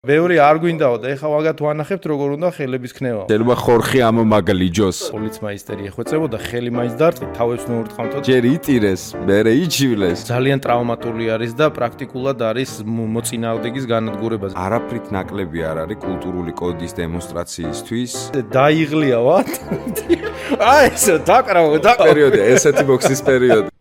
ბევრი არ გვინდაო და ეხლა მაგათ ვანახებთ როგორ უნდა ხელების ქნევა. შეიძლება ხორხი ამომაგლიჯოს. პოლიცმაისტერი ეხვეწებოდა ხელი მაინც დარტყით, თავებს მოურტყამთ. ჯერ იტირეს, მერე იჩივლეს. ძალიან ტრავმატული არის და პრაქტიკულად არის მოწინააღმდეგის განადგურება. არაფრით ნაკლები არ არის კულტურული კოდის დემონსტრაციისთვის. დაიღლია ვათ. აი ესე დაკრავო. პერიოდი, ესეთი ბოქსის პერიოდი.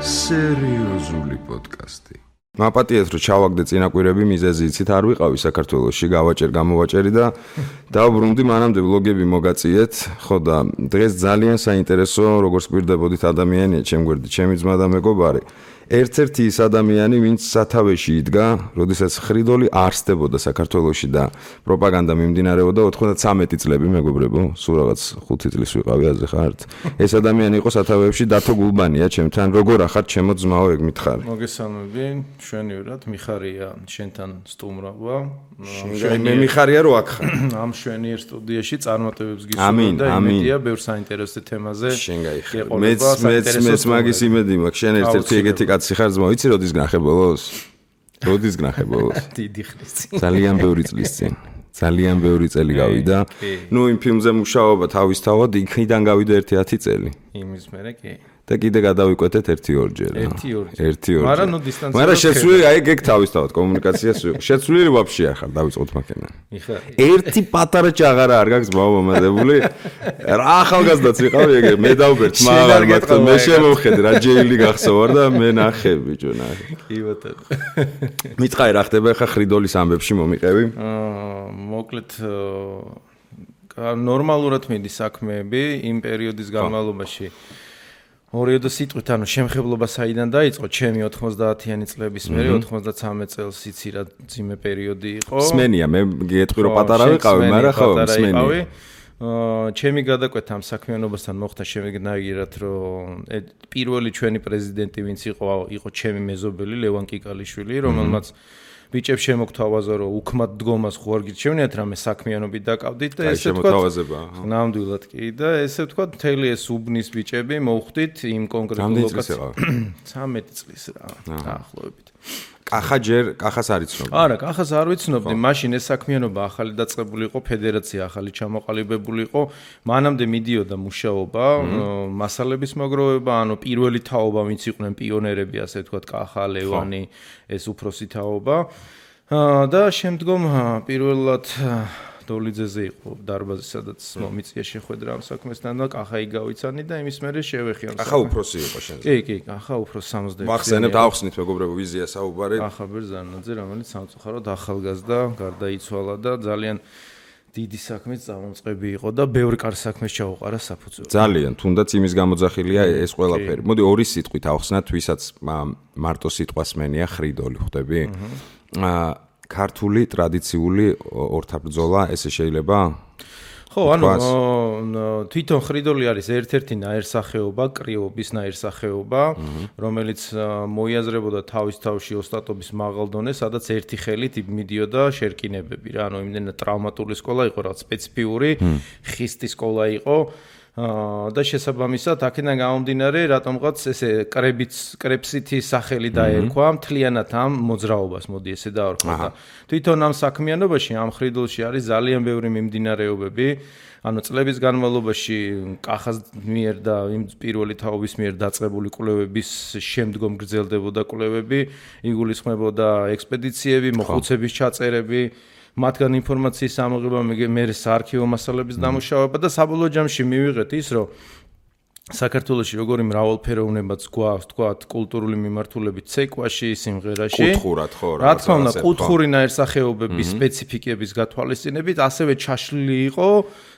სერიოზული პოდკასტი. მაპატიეთ რომ ჩავაგდე წინაკვირები მიზეზი იცით არ ვიყავი საქართველოში გამოვაჭერი და დავბრუნდი მანამდე ვლოგები მოგაწიეთ ხო და დღეს ძალიან საინტერესო როგორც გვირდებოდით ადამიანია ჩემ გვერდით ჩემი ძმა და მეგობარი ერთ-ერთი ის ადამიანი ვინც სათავეში იდგა როდესაც ხრიდოლი არსდებოდა საქართველოში და პროპაგანდა მიმდინარეობდა 93 წლები მეგობრებო სულ რაღაც 5 წლის ვიყავი აზე ხართ ეს ადამიანი იყო სათავეებში დათო გულბანია ჩემთან როგორ ახართ ჩემო ძმაო ეგ მითხარი მოგესალმები შვენივრად მიხარია შენთან სტუმრობა მე მიხარია რომ აქ ხარ ამ შვენიერ სტუდიაში წარმატებებს გისურვებ და იმედია ბევრ საინტერესო თემაზე შენ გაიხარ მეც მაგის იმედი მაქვს შენ ერთ-ერთი ეგეთი კაცი ხარ ძმა ვიცი როდის გნახებოლოს დიდი ხნის წინ ძალიან ბევრი წლის წინ ძალიან ბევრი წელი გავიდა ნუ იმ ფილმზე მუშაობა თავისთავად იქიდან გავიდა 1-10 წელი იმის მერე კი და კიდე გადავიკვეთეთ 1-2 ჯერ. 1-2. მაგრამ ნუ დისტანცია. მაგრამ შეცვლილი აი ეგ თავისთავად კომუნიკაციას შეცვლილი ვაფშე არ ხარ დავიწყოთ მაქენა. ერთი პატარა ჭაღარა არ გაქვს მომადებული. რა ახალგაზრდაც ვიყავი ეგ მე დავბერთ მაგრამ მათქო მე შემოვხედე რა ჯეილი გახსოვარ და მე ნახე ბიჭო ნახე. კი ბატონო. მითხარი რა ხდება ხა ხრიდოლის ამბებში მომიყევი? მოკლედ ნორმალურად მიდის საქმეები იმ პერიოდის განმავლობაში. ორიოდო სიტყვით, ანუ შემხებლობა საიდან დაიწყო? ჩემი 90-იანი წლების მერე 93 წელს იცი რა ძიმე პერიოდი იყო. სმენია, მე გეტყვი რომ პატარა ვიყავი, მაგრამ ხო, სმენია. ჩემი გადაკვეთა ამ საქმიანობასთან მოხდა შემეგნაირად, რომ პირველი ჩვენი პრეზიდენტი ვინც იყო ჩემი მეზობელი ლევან კიკალიშვილი, რომელმაც ბიჭებს შემოგთავაზა რომ უქმად დგომას ხო არ გირჩევნიათ რამე საქმიანობით დაკავდით და ესე თქვა ნამდვილად კი და ესე თქვა მთელი ეს უბნის ბიჭები მოვხვდით იმ კონკრეტულ ლოკაციაზე 13 წლის რა დაახლოებით კახას არ იცნობდი არა კახას არ ვიცნობდი მაშინ ეს საქმიანობა ახალი დაწყებული იყო ფედერაცია ახალი ჩამოყალიბებული იყო მანამდე მიდიოდა მუშაობა მასალების მოგროვება ანუ პირველი თაობა ვინც იყვნენ პიონერები ასე თქვა კახა ლევანი ეს უფროსი თაობა და შემდგომ პირველად დოლიძეზე იყო დარბაზი სადაც მომიწია შეხვედრა ამ საქმესთან და კახაი გავიცანი და იმის მერე შევეხი ამ კახა უფროსი იყო შენზე კი კახა უფროს 69 მახსენებთ ახსნით მეგობრებო ვიზია საუბარი კახა ბერძანაძე რომელიც სამწუხაროდ ახალგაზრდა გარდაიცვალა და ძალიან დიდი საქმის წამოწყები იყო და ბევრი კარგი საქმეს ჩაუყარა საფუძველი ძალიან თუნდაც იმის გამოძახილია ეს ყველაფერი მოდი ორი სიტყვით ახსნათ ვისაც მარტო სიტყვას მენია ხრიდოლი ხვდები ქართული ტრადიციული ორთაბრძოლა ესე შეიძლება? ხო, ანუ თვითონ ხრიდოლი არის ერთ-ერთი ნაირსახეობა, კრიობის ნაირსახეობა, რომელიც მოიაზრებოდა თავის თავში ოსტატობის მაღალ დონეს, სადაც ერთი ხელით მიდიოდა შერკინებები რა, ანუ იმდენად ტრავმატული სკოლა იყო, რაღაც სპეციფიური ხისტი სკოლა იყო. და შესაბამისად აქედან გამომდინარე რატომღაც ესე კრეპსითი სახელი დაერქვა მთლიანად ამ მოძრაობას მოდი ესე დავარქვა და თვითონ ამ საქმიანობაში ამ ხრიდოლში არის ძალიან ბევრი მიმდინარეობები ანუ წლების განმავლობაში კახას მიერ და იმ პირველი თაობის მიერ დაწყებული კვლევების შემდგომ გრძელდებოდა კვლევები იგულისხმებოდა ექსპედიციები მოხუცების ჩაწერები მათგან ინფორმაციის ამოღება მე საარქივო მასალების დამუშავება და საბოლოო ჯამში მივიღეთ ის რომ საქართველოში როგორი მრავალფეროვნებაც გვაქვს თქვა კულტურული მიმართულებით ცეკვაში სიმღერაში კუთხურად ხო რა თქმა უნდა კუთხური ნაირსახეობების სპეციფიკების გათვალისწინებით ასევე ჩაშლილი იყო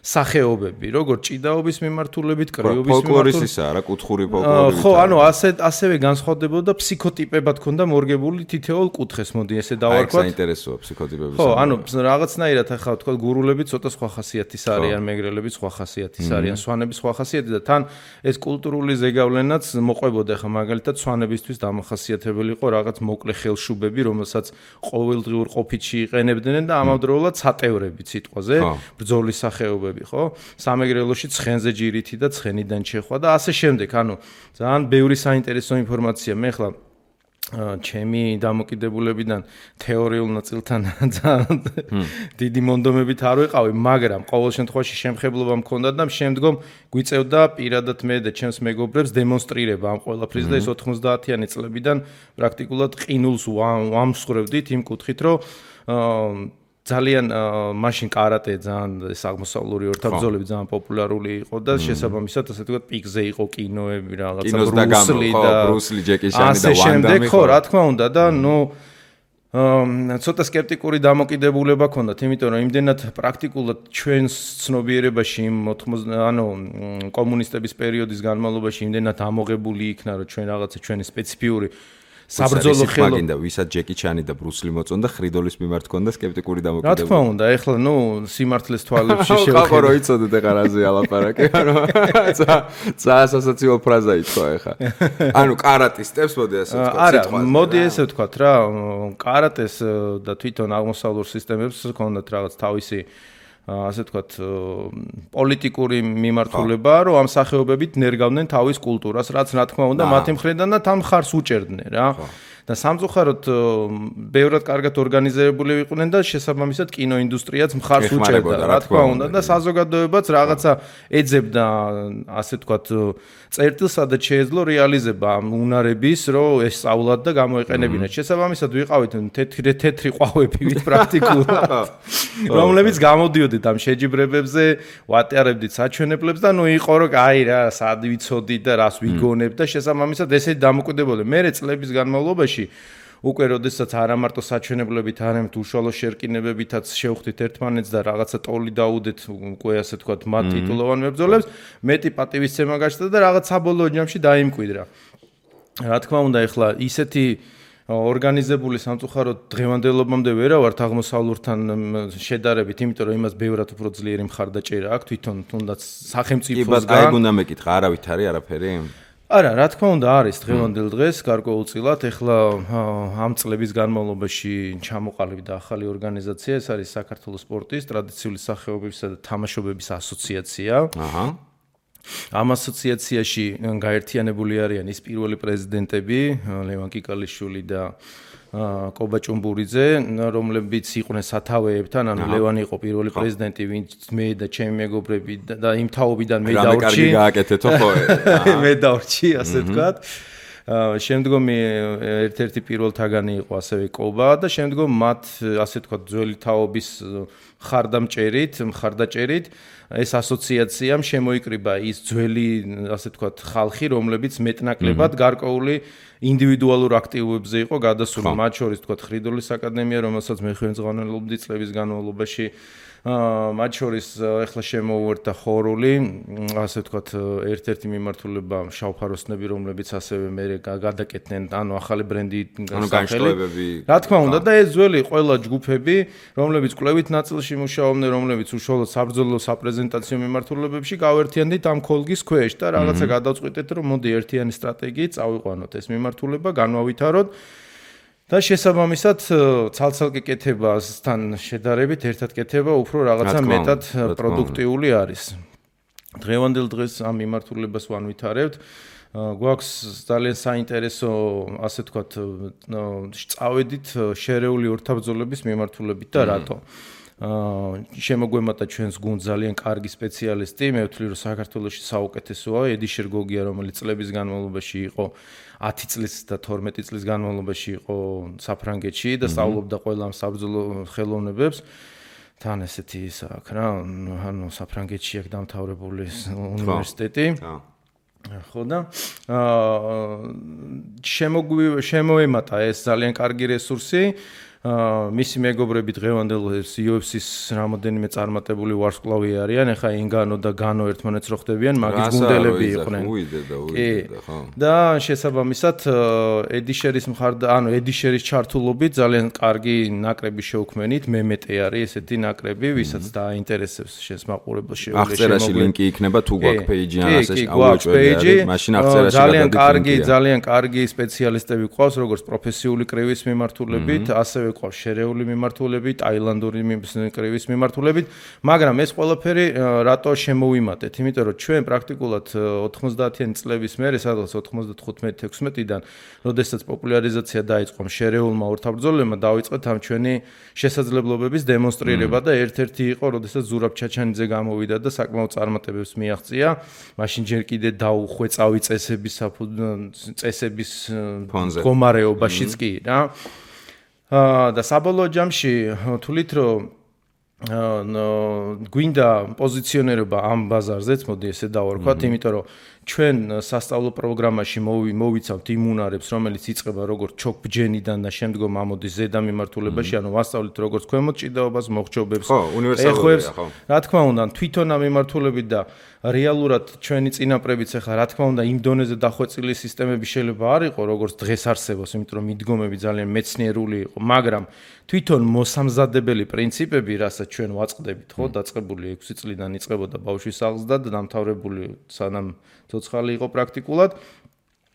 სახეობები როგორც ჭიდაობის მიმართულებით კრიობის ფოლკლორისისა რა კუთხური ფოლკლორი ხო ანუ ასევე განსხვავდებოდა ფსიქოტიპებად ქონდა მორგებული თითოეულ კუთხეს მოდი ესე დავარქვათ საინტერესოა ფსიქოტიპების ხო ანუ რაღაცნაირად ახლა თქვა გურულები ცოტა სხვა ხასიათის არიან მეგრელები სხვა ხასიათის არიან სვანები სხვა ხასიათის და თან ეს კულტურული ზეგავლენაც მოყვებოდა ხა მაგალითად სვანებისთვის დამახასიათებელი იყო რაღაც მოკლე ხელშუბები რომელსაც ყოველდღიურ ყოფითში იყენებდნენ და ამავდროულად სატევრები სიტყვაზე ბრძოლის სახეობები ხო სამეგრელოში ცხენზე ჯირითი და ცხენიდან ჩეხვა და ასე შემდეგ ანუ ძალიან ბევრი საინტერესო ინფორმაცია მე ხლა ჩემი დამოკიდებულებიდან თეორიულ ნაწილთან ძალიან დიდი მონდომებით არ ვიყავი, მაგრამ ყოველ შემთხვევაში შემხებლობა მქონდა და შემდგომ გვიწევდა პირადად მე და ჩემს მეგობრებს დემონსტრირება ამ ყველაფრის და ეს 90-იანი წლებიდან პრაქტიკულად ყინულს ვამსხვრევდით იმ კუთხით, რომ ძალიან მაშინ კარატე ძალიან ეს აღმოსავლური ორთაბრძოლები ძალიან პოპულარული იყო და შესაბამისად ასე ვთქვათ პიკზე იყო კინოები რაღაცა ბრუსლი, ჯეკი ჩანი და ვან დამი ხო რა თქმა უნდა და ცოტა სკეპტიკური დამოკიდებულება ქონდათ, იმიტომ რომ იმდენად პრაქტიკულად ჩვენს ცნობიერებაში კომუნისტების პერიოდის განმავლობაში იმდენად ამოღებული იქნა, რომ ჩვენ რაღაცა ჩვენი სპეციფიური საბრძოლო ხელო მაგინდა ვისაც ჯეკი ჩანი და ბრუსლი მოწონდა ხრიდოლის მიმართ ქონდა სკეპტიკური დამოკიდებულება. რა თქმა უნდა, ეხლა სიმართლეს თვალებში შევხედე. ხო, რო იცოდეთ ეხლა რაზე ალაპარაკე, ასოციაციო ფრაზა ითქვა ეხლა. კარატისტებს მოდი ასე ვთქვათ, სიტყვაზე. არა, მოდი ესე ვთქვათ რა, კარატეს და თვითონ აღმოსავლურ სისტემებს ქონდათ რაღაც თავისი ასე ვთქვათ პოლიტიკური მიმართულება, რომ ამ სახეობებით ნერგავდნენ თავის კულტურას, რაც რა თქმა უნდა მათი მხრიდან და თან ხარს უჭერდნენ რა. და სამწუხაროდ ბევრად კარგად ორგანიზებული იყვნენ და შესაბამისად კინოინდუსტრიაც მხარს უჭერდა, რა თქმა უნდა და საზოგადოებაც რაღაცა ეძებდა, ასე ვთქვათ, წერტილს, სადაც შეეძლო რეალიზება ამ უნარების, რომ ეს სწავლად და გამოეყენებინათ. შესაბამისად ვიყავით თეთრი ყვავები პრაქტიკულად, რომლებიც გამოდიოდით ამ შეჯიბრებებზე, ვატარებდით საჩვენებლებს და იყო რომ აი რა, სად ვიცოდით და რას ვიგონებთ და შესაბამისად ესეთი დამოკიდებულება. მერე წლების განმავლობაში უკვე როდესაც არა მარტო საჩვენებლებით, არამედ უშუალო შერკინებებითაც შევხვდით ერთმანეთს და რაღაცა ტოლი დაუდეთ უკვე ასე ვთქვათ მათ ტიტულოვან მებრძოლებს, მეტი პატივისცემა გაჩნდა და რაღაც საბოლოო ჯამში დაიმკვიდრა. რა თქმა უნდა, ეხლა ისეთი ორგანიზებული სამწუხაროდ დღევანდელობამდე ვერა ვართ აღმოსავლურთან შედარებით, იმიტომ რომ იმას ბევრად უფრო ძლიერი მხარდაჭერა აქვს თვითონ თუნდაც სახელმწიფოსგან. კი, ბატონო, უნდა მეკითხა, არავით არის არაფერი? არა, რა თქმა უნდა არის დღევანდელ დღეს გარკვეულწილად, ეხლა ამ წლების განმავლობაში ჩამოყალიბდა ახალი ორგანიზაცია, ეს არის საქართველოს სპორტის ტრადიციული სახეობებისა და თამაშობების ასოციაცია. ამ ასოციაციაში გაერთიანებული არიან ის პირველი პრეზიდენტები, ლევან კიკალიშვილი და კობა ჭუმბურიძე, რომლებიც იყვნენ სათავეებთან, ანუ ლევანი იყო პირველი პრეზიდენტი, ვინც მე და ჩემი მეგობრები და იმ თაობიდან მე დავრჩი. კარგი გააკეთეთო ხო? მე დავრჩი, ასე ვთქვათ. შემდგომი ერთ-ერთი პირველთაგანი იყო ასევე კობა და შემდგომ მათ ასე ვთქვათ ძველი თაობის მხარდაჭერით ეს ასოციაციამ შემოიკრიბა ის ძველი ასე ვთქვათ ხალხი, რომლებიც მეტნაკლებად გარკვეული ინდივიდუალურ აქტივობებზე იყო გადასული, მათ შორის ვთქვათ ხრიდოლის აკადემია, რომელსაც მე ხელმძღვანელობდი წლების განმავლობაში, მათ შორის ეხლა შემოუერთდა ხორული, ასე ვთქვათ, ერთ-ერთი მიმართულება შავფაროსნები, რომლებიც ასევე მე გადაკეთდნენ, ანუ ახალი ბრენდი განშტოებები. რა თქმა უნდა და ეს ძველი ყველა ჯგუფები, რომლებიც კვლევით ნაწილში მუშაობდნენ, რომლებიც უშუალოდ საბრძოლო საპრეზენტაციო მიმართულებებში გავერთიანდით ამ ქოლგის ქვეშ და რაღაცა გადავწყვიტეთ, რომ მოდი ერთიანი სტრატეგიით წავიყვანოთ ეს მიმართულება, განვავითაროთ. და შესაბამისად ცალ-ცალკე კეთებასთან შედარებით ერთად კეთება უფრო რაღაცა მეტად პროდუქტიული არის. დღევანდელ დღეს ამ მიმართულებას ვანვითარებთ. გვაქვს ძალიან საინტერესო, ასე ვთქვათ, წავედით შერეული ორთაბრძოლების მიმართულებით და რატო? შემოგვემატა ჩვენს გუნდს ძალიან კარგი სპეციალისტი, მე ვთვლი რომ საქართველოში საუკეთესოა, ედი შერგოგია, რომელიც წლების განმავლობაში იყო 10 წლის და 12 წლის განმავლობაში იყო საფრანგეთში და სწავლობდა ყველა ამ საბრძოლო ხელოვნებებს. თან ესეთი ის აქვს რა, ანუ საფრანგეთში აქვს დამთავრებული უნივერსიტეტი. ხო და შემოემატა ეს ძალიან კარგი რესურსი. მისი მეგობრები დღევანდელ UFC-ს რამოდენიმე წარმატებული ვარსკვლავი არიან, ეხა ინგანო და განო ერთმანეთს რო ხდებიან, მაგის გუნდელები იყვნენ. და შესაბამისად ედიშერის ედიშერის ჩართულობით ძალიან კარგი ნაკრები შევქმნით, მემეტე არის ესეთი ნაკრები, ვისაც დაინტერესებს შესმაყურებელ შეუძლია. აღწერაში ლინკი იქნება თუ გვაქვს პეიჯი ან ასე ავუჭველი, მაშინ აღწერაში ძალიან კარგი სპეციალისტები გვყავს, როგორც პროფესიული კრივის მიმართულებით, ასევე ასევე ყავს შერეული მიმართულებით, ტაილანდური კრივის მიმართულებით, მაგრამ ეს ყველაფერი რატო შემოვიმატეთ? იმიტომ რომ ჩვენ პრაქტიკულად 90-იანი წლების მერე, სადღაც 95-16-დან, როდესაც პოპულარიზაცია დაიწყო შარეულმა ორთაბრძოლებმა, დაიწყეთ ამ ჩვენი შესაძლებლობების დემონსტრირება და ერთ-ერთი იყო, როდესაც ზურაბ ჩაჩანიძე გამოვიდა და საკმაოდ წარმატებებს მიაღწია. მაშინ ჯერ კიდე დაუხვეწავი წესების მდგომარეობაშიც კი რა. და საბოლოო ჯამში თვლით რომ გვინდა პოზიციონერობა ამ ბაზარზეც, მოდი ესე დავარქვათ, იმიტომ რომ ჩვენ სასწავლო პროგრამაში მოვიცავთ იმ უნარებს, რომელიც იწყება როგორც ჩოქბჯენიდან და შემდგომ ამოდის ზედა მიმართულებაში, ანუ ვასწავლით როგორც ქვემოთ ჭიდაობას, მოხჭობებს, ეხოებს, რა თქმა უნდა, თვითონ ამ მიმართულებით და რეალურად ჩვენი წინაპრებიც ახლა რა თქმა უნდა იმ დონეზე დახვეწილი სისტემები შეიძლება არ იყო, როგორც დღეს არსებობს, იმიტომ რომ მიდგომები ძალიან მეცნიერული იყო, მაგრამ თვითონ მოსამზადებელი პრინციპები, რასაც ჩვენ ვაწყდებით, ხო, დაწყებული 6 წლიდან იწყებოდა ბავშვის აღზრდა და დამთავრებული სანამ ცოცხალი იყო პრაქტიკულად,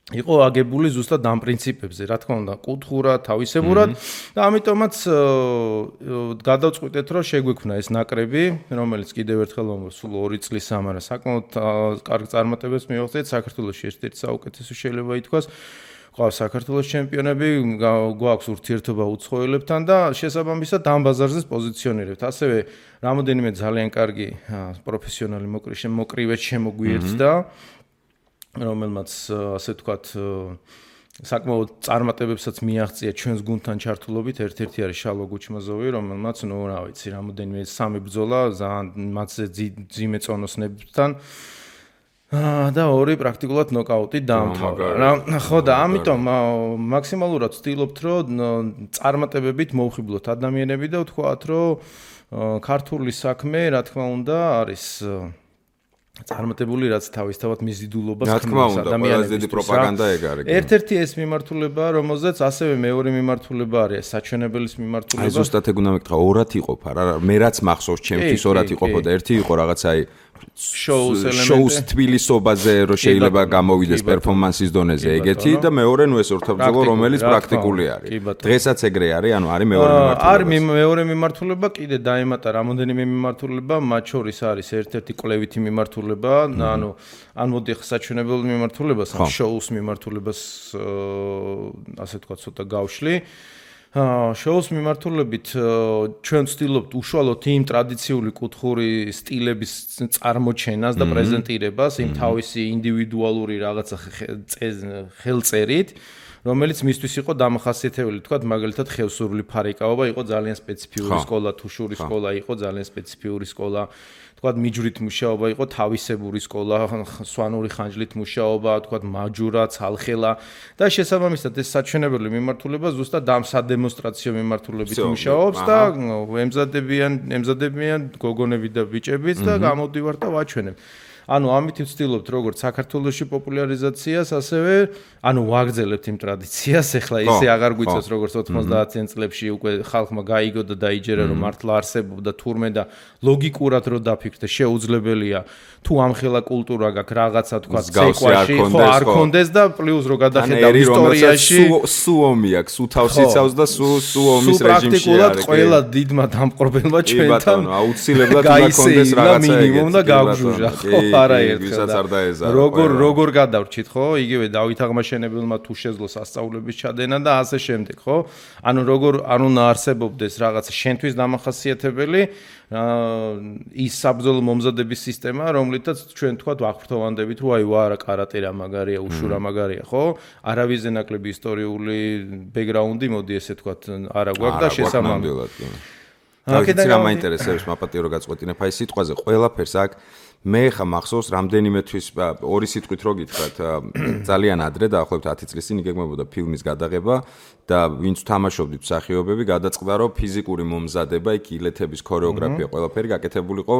იყო აგებული ზუსტად ამ პრინციპებზე, რა თქმა უნდა, კუთხურად, თავისებურად და ამიტომაც გადავწყვიტეთ, რომ შეგვექმნა ეს ნაკრები, რომელიც კიდევ ერთხელ სულ 2 წლის ამარა საკმაოდ კარგ წარმატებებს მიაღწიეთ საქართველოში, ერთ-ერთი საუკეთესო შეიძლება ითქვას. ყავს საქართველოს ჩემპიონები, გვაქვს ურთიერთობა უცხოელებთან და შესაბამისად ამ ბაზარზე პოზიციონირებთ. ასევე რამოდენიმე ძალიან კარგი პროფესიონალი მოკრივეც შემოგვიერთდა, რომელმაც ასე ვთქვათ საკმაოდ წარმატებებსაც მიაღწია ჩვენს გუნდთან ჩართულობით. ერთ-ერთი არის შალვა გუჩმაზოვი, რომელმაც რა ვიცი, რამოდენიმე 3 ბრძოლა ძალიან მათზე ძიმე წონოსნებთან და 2 პრაქტიკულად ნოკაუტი დაამთავრა. ხო და ამიტომ მაქსიმალურად ვცდილობთ, რომ წარმატებებით მოვხიბლოთ ადამიანები და ვთქვათ, რომ ქართული საქმე, რა თქმა უნდა, არის წარმატებული, რაც თავისთავად მიზიდულობას ქმნის ადამიანებს. დიდი პროპაგანდა ეგ არის. ერთ-ერთი ეს მიმართულება, რომელზეც ასევე მეორე მიმართულება არის საჩვენებელის მიმართულება. აი ზუსტად ეგ უნდა მეკითხა, ორად იყოფა რა. მე რაც მახსოვს, ჩემთვის ორად იყოფოდა. ერთი იყო რაღაცა აი შოუს თბილისობაზე რომ შეიძლება გამოვიდეს პერფორმანსის დონეზე ეგეთი და მეორე ნუ ეს ორთაბრძოლო რომელიც პრაქტიკული არის. დღესაც ეგრე არის, ანუ არის მეორე მიმართულება. არის მეორე მიმართულება, კიდე დაემატა რამოდენიმე მიმართულება, მათ შორის არის ერთ-ერთი კვლევითი მიმართულება, ანუ ან მოდი ახლა საჩვენებელ მიმართულებას, ან შოუს მიმართულებას ასე თქვა ცოტა გავშლი. შოუს მიმართულებით ჩვენ ვცდილობთ უშუალოდ იმ ტრადიციული კუთხური სტილების წარმოჩენას და პრეზენტირებას, იმ თავისი ინდივიდუალური რაღაცა ხელწერით, რომელიც მისთვის იყო დამახასიათებელი, თქვათ, მაგალითად, ხევსურული ფარიკაობა იყო ძალიან სპეციფიური სკოლა, თუშური სკოლა იყო ძალიან სპეციფიური სკოლა. თქვათ, მიჯვრით მუშაობა იყო თავისებური სკოლა, სვანური ხანჯლით მუშაობა, თქვათ, მაჯურა, ცალხელა და შესაბამისად ეს საჩვენებელი მიმართულება ზუსტად ამ სადემონსტრაციო მიმართულებით მუშაობს და ემზადებიან გოგონები და ბიჭებიც და გამოდივართ და ვაჩვენებ. ანუ ამით ვცდილობთ როგორც საქართველოში პოპულარიზაციას, ასევე ანუ ვაგრძელებთ იმ ტრადიციას, ეხლა ისე აღარ გვიწევს როგორც 90-იან წლებში უკვე ხალხმა გაიგო და დაიჯერა რომ მართლა არსებობდა თურმე და ლოგიკურად რო დაფიქრდე, შეუძლებელია თუ ამხელა კულტურა გაქვს რაღაცა თქვა ცეკვაში, ხო არ კონდეს და პლუს რო გადახედავ ისტორიაში, სუომი აქვს, სუ თავს იცავს და სუ ომის რეჟიმში არის. პრაქტიკულად ყველა დიდმა დამპყრობელმა ჩვენთან აუცილებლად უნდა კონდეს რაღაცა მინიმუმ და გავგჟუჟა, ხო არაერთხელ. როგორ გადავრჩით, ხო? იგივე დავით აღმაშენებელმა თუ შეძლო სასწაულების ჩადენა და ასე შემდეგ, ხო? ანუ როგორ არ უნდა არსებობდეს რაღაცა შენთვის დამახასიათებელი ის საბრძოლო მომზადების სისტემა, რომლითაც ჩვენ თქვა ვაღვრთოვანდებით, რომ აი ვარა კარატე რა მაგარია, უშუ რა მაგარია, ხო? არავის ნაკლები ისტორიული ბექგრაუნდი, მოდი ესე თქვა, არა გვაქვს და შესაბამისად. აქედან რა მაინტერესებს მაპატიო რო გაწყვეტინებ აი სიტყვაზე ყველაფერს აქ მე ხა მახსოვს რამდენიმე თვის ორი სიტყვით რო გითხრათ ძალიან ადრე დაახლოებით 10 წლის წინ იგეგმებოდა ფილმის გადაღება და ვინც თამაშობდით მსახიობები გადაწყდა რომ ფიზიკური მომზადება იქ ილეთების ქორეოგრაფია ყველაფერი გაკეთებულიყო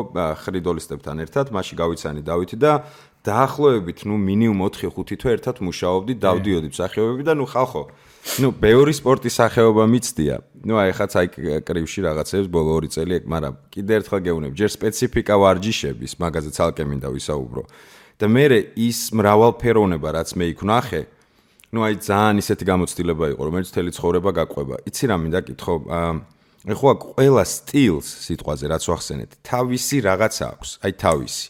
ხრიდოლისტებთან ერთად მასში გავიცანი დავითი და დაახლოებით ნუ მინიმუმ 4-5 თვე ერთად მუშაობდით დავდიოდი მსახიობები და ნუ ხალხო ნუ ბევრი სპორტის სახეობა მიცდია. ნუ აი ხაც აი კრივში რაღაცებს ბოლო 2 წელი ეგ, მაგრამ კიდე ერთხელ გეუბნები, ჯერ სპეციფიკა ვარჯიშების, მაგაზე ცალკე მინდა ვისაუბრო. და მე ის მრავალფეროვნება, რაც მე იქ ვნახე, ნუ აი ძალიან ისეთი გამოცდილება იყო, რომელიც მთელი ცხოვრება გაყვება. იცი რა მინდა კითხო? ეხლა ყველა სტილს სიტყვაზე რაც ვახსენეთ, თავისი რაღაცა აქვს, აი თავისი.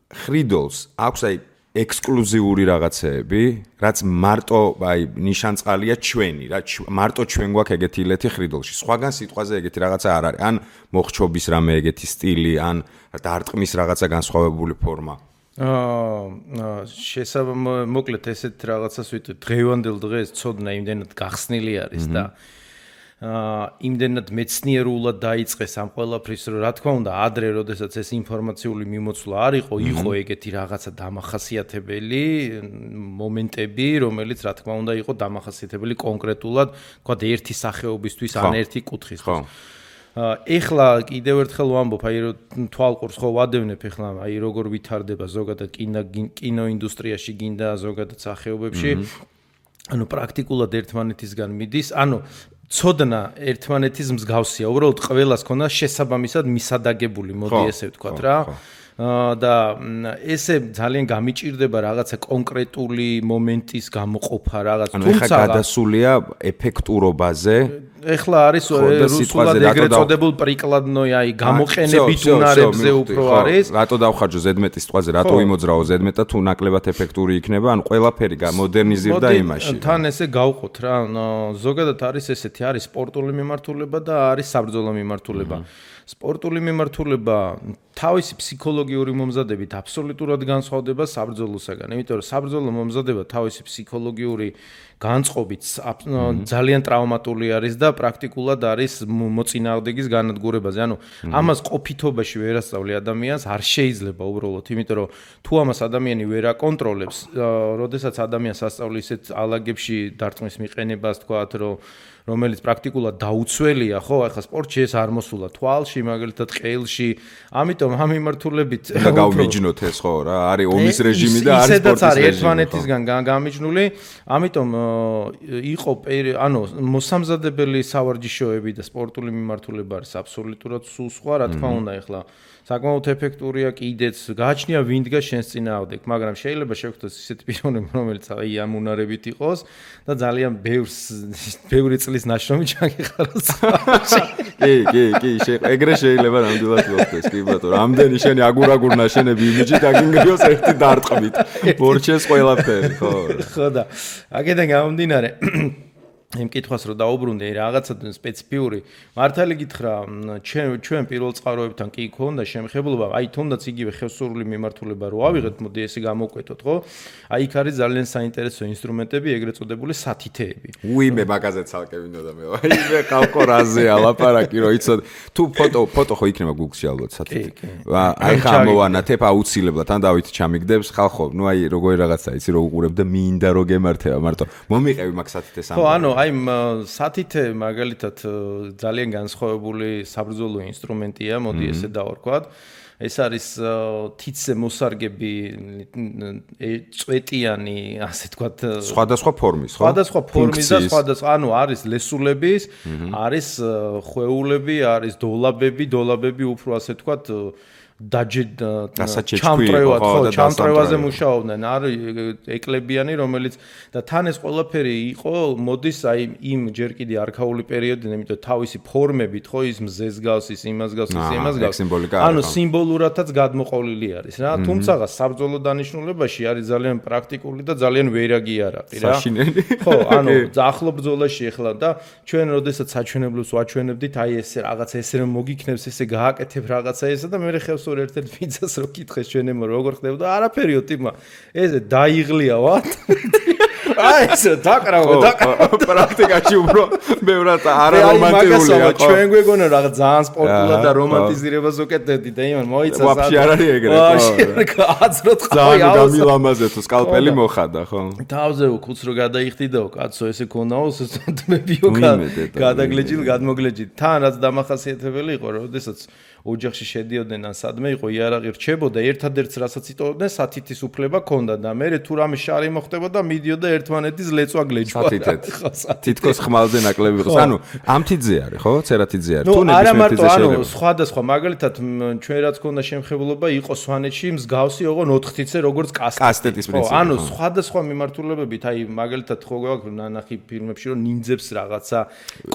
ხრიდოლს აქვს აი ექსკლუზიური რაღაცეები, რაც მარტო აი ნიშანწყალია ჩვენი, რა მარტო ჩვენ გვაქვს ეგეთი ილეთი ხრიდოლში. სხვაგან სიტყვაზე ეგეთი რაღაცა არ არის. ან მოხჩობის რამე ეგეთი სტილი, ან დარტყმის რაღაცა განსხვავებული ფორმა. მოკლედ ესეთ რაღაცას ვიტყვი, დღევანდელ დღეს ცოდნა იმდენად გახსნილი არის და იმდენად მეცნიერულად დაიწყეს ამ ყველაფრის, რომ რა თქმა უნდა, ადრე, როდესაც ეს ინფორმაციული მიმოცვლა არ იყო ეგეთი რაღაცა დამახასიათებელი მომენტები, რომელიც რა თქმა უნდა იყო დამახასიათებელი კონკრეტულად, თქვა ერთი სახეობისთვის ან ერთი კუთხისთვის. ეხლა კიდევ ერთხელ ვამბობ, აი თვალყურს ხო ვადევნებ ეხლა, აი როგორ ვითარდება ზოგადად კინოინდუსტრიაში გინდა ზოგადად სახეობებში. ანუ პრაქტიკულად ერთმანეთისგან მიდის, ანუ ცოდნა ერთმანეთის მსგავსია, უბრალოდ ყველას ქონდა შესაბამისად მისადაგებული, მოდი ესე ვთქვათ რა. და ესე ძალიან გამიჭირდება რაღაცა კონკრეტული მომენტის გამოყოფა რაღაც. თუმცა გადასულია ეფექტურობაზე. ეხლა არის რუსულად ეგრეთ წოდებულ პრიკладნოი, აი გამოყენებით უნარებზე უფრო არის. რატო დავხარჯო ზედმეტის სიტყვაზე, რატო იმოძრავო ზედმეტად თუ ნაკლებად ეფექტური იქნება, ანუ ყველაფერი გამოდერნიზირდა იმაში. თან ესე გავყოთ რა, ზოგადად არის ესეთი, არის სპორტული მიმართულება და არის საბრძოლო მიმართულება. სპორტული მიმართულება თავისი ფსიქოლოგიური მომზადებით აბსოლუტურად განსხვავდება საბრძოლოსაგან. იმიტომ რომ საბრძოლო მომზადება თავისი ფსიქოლოგიური განწყობით ძალიან ტრავმატული არის და პრაქტიკულად არის მოწინააღმდეგის განადგურებაზე. ანუ ამას ყოფითობაში ვერ ასწავლი ადამიანს, არ შეიძლება უბრალოდ, იმიტომ რომ თუ ამას ადამიანი ვერ აკონტროლებს, როდესაც ადამიანს ასწავლი ისეთ ალაგებში დარტყმის მიყენებას, თქვათ, რომელიც პრაქტიკულად დაუცველია, ხო, ახლა სპორტში ეს არ მოსულა თვალში, მაგალითად ყელში. ამიტომ ამ მიმართულებით გავმიჯნოთ ეს ხო რა, არის ომის რეჟიმი და არის სპორტის რეჟიმი. ერთმანეთისგან გამიჯნული, ამიტომ იყო ანუ მოსამზადებელი სავარჯიშოები და სპორტული მიმართულება არის აბსოლუტურად სულ სხვა, რა თქმა უნდა, ახლა საკმაოდ ეფექტურია კიდეც, გააჩნია ვინ დგას შენს წინააღმდეგ, მაგრამ შეიძლება შევხვდეს ისეთი პიროვნება, რომელიც აი ამ უნარებით იყოს და ძალიან ბევრი წლის ნაშრომი ჩაგიხაროს. კი, ეგრე შეიძლება ნამდვილად მოხდეს, კი ბატონო. რამდენი შენი აგურ ნაშენები იმიჯი დაგინგრიოს ერთი დარტყმით. მორჩეს ყველაფერი, ხო. ხო და აქედან გამომდინარე იმ კითხვას რომ დაუბრუნდე რაღაცა სპეციფიური მართალი გითხრა ჩვენ პირველ წყაროებთან კი ქონდა შემხებლობა აი თუნდაც იგივე ხევსურული მიმართულება რო ავიღეთ მოდი ესე გამოვკვეთოთ ხო აი იქ არის ძალიან საინტერესო ინსტრუმენტები ეგრეთ წოდებული სათითეები უიმე მაგაზე ცალკე მინდოდა მე აი მე კალკორაზე ალაპარაკი რო იცოდ თუ ფოტო ხო იქნება Google-ში ალბათ სათითე აი ხამოვანათებ აუცილებლად ან დავით ჩამიგდებს ხალხო ნუ აი როგორი რაღაცა იცი რო უყურებ და მინდა რო გემართება მარტო მომიყევი მაგ სათითეს ხო ანუ აი სათითე მაგალითად ძალიან განსხვავებული საბრძოლო ინსტრუმენტია, მოდი ესე დავარქვათ. ეს არის თითზე მოსარგები წვეტიანი, ასე თქვათ, სხვადასხვა ფორმის, ხო? სხვადასხვა ფორმის და სხვადასხვა, ანუ არის ლესულების, არის ხვეულები, არის დოლაბები უფრო ასე თქვათ ჩამტრევად ხო ჩამტრევაზე მუშაობდნენ არის ეკლებიანი რომელიც და თან ეს ყველაფერი იყო მოდის აი იმ ჯერ კიდე არქაული პერიოდიდან იმიტომ თავისი ფორმებით ხო ის მზეს გავს ის იმას გავს ის იმას გავს ანუ სიმბოლურადაც გადმოყოლილი არის რა თუმცა საბრძოლო დანიშნულებაში არის ძალიან პრაქტიკული და ძალიან ვერაგი არაყი რა ხო ანუ ახლო ბრძოლაში ეხლა და ჩვენ როდესაც საჩვენებლებს ვაჩვენებდით აი ესე რაღაცა ესე რომ მოგიქნებს ესე გააკეთებ რაღაცა ესა და მე ხევს ერთ-ერთ ფიცას რო კითხეს ჩვენემ როგორ ხდებოდა არაფერიო ტიპმა ესე დაიღლია ვათ აი ესე დაკრავო პრაქტიკაში უფრო ბევრად არარომანტიკულია ხო ჩვენ გვეგონა რაღაც ძალიან სპორტულად და რომანტიზირებას უკეთებდი და იმან მოიცა ვაფშე არ არის ეგრე ხო აზროთ ხო ძალიან გამილამაზე თუ სკალპელი მოხადა ხო თავზე უქუც რო გადაიხდიდაო კაცო ესე ქონაო სისტემებიო გადაგლეჯილ გადმოგლეჯილ თან რაც დამახასიათებელი იყო როდესაც ოჯახში შედიოდნენ ან სადმე იყო იარაღი რჩებოდა ერთადერთს რასაც იტოვებდნენ სათითის უფლება ქონდა და მე თუ რამე შარი მოხდებოდა მიდიოდა ერთმანეთის ლეწვა გლეჯვა თითქოს ხმალზე ნაკლები იყო ანუ ამთიძე არის ხო ცერათიძე არის თუ ნებისმიერ ანუ სხვადასხვა მაგალითად ჩვენ რაც ქონდა შემხებლობა იყო სვანეთში მსგავსი ოღონ 4-თიცე როგორც კასტეტის პრინციპი ანუ სხვადასხვა მიმართულებებით აი მაგალითად ხო გვაქვს ნანახი ფილმებში რომ ნინძებს რაღაცა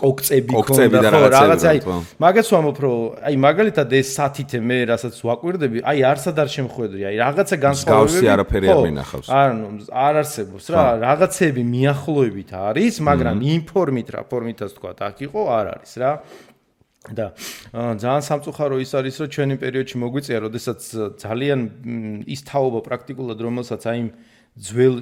კოქწები ქონდა ხო რაღაცა აი მაგაც ვამბობ რომ აი მაგალითად ეს სათითე მე რასაც ვაკვირდები აი არსად არ შემხვედრი აი რაღაცა განსხვავებები არაფერი არ მინახავს ანუ არ არსებობს რა რაღაცები მიახლოებით არის მაგრამ იმ ფორმით რა ფორმითაც თქვა აქ იყო არ არის რა და ძალიან სამწუხარო ის არის რომ ჩვენი პერიოდში მოგვიწია როდესაც ძალიან ის თაობა პრაქტიკულად რომელსაც აი ძველ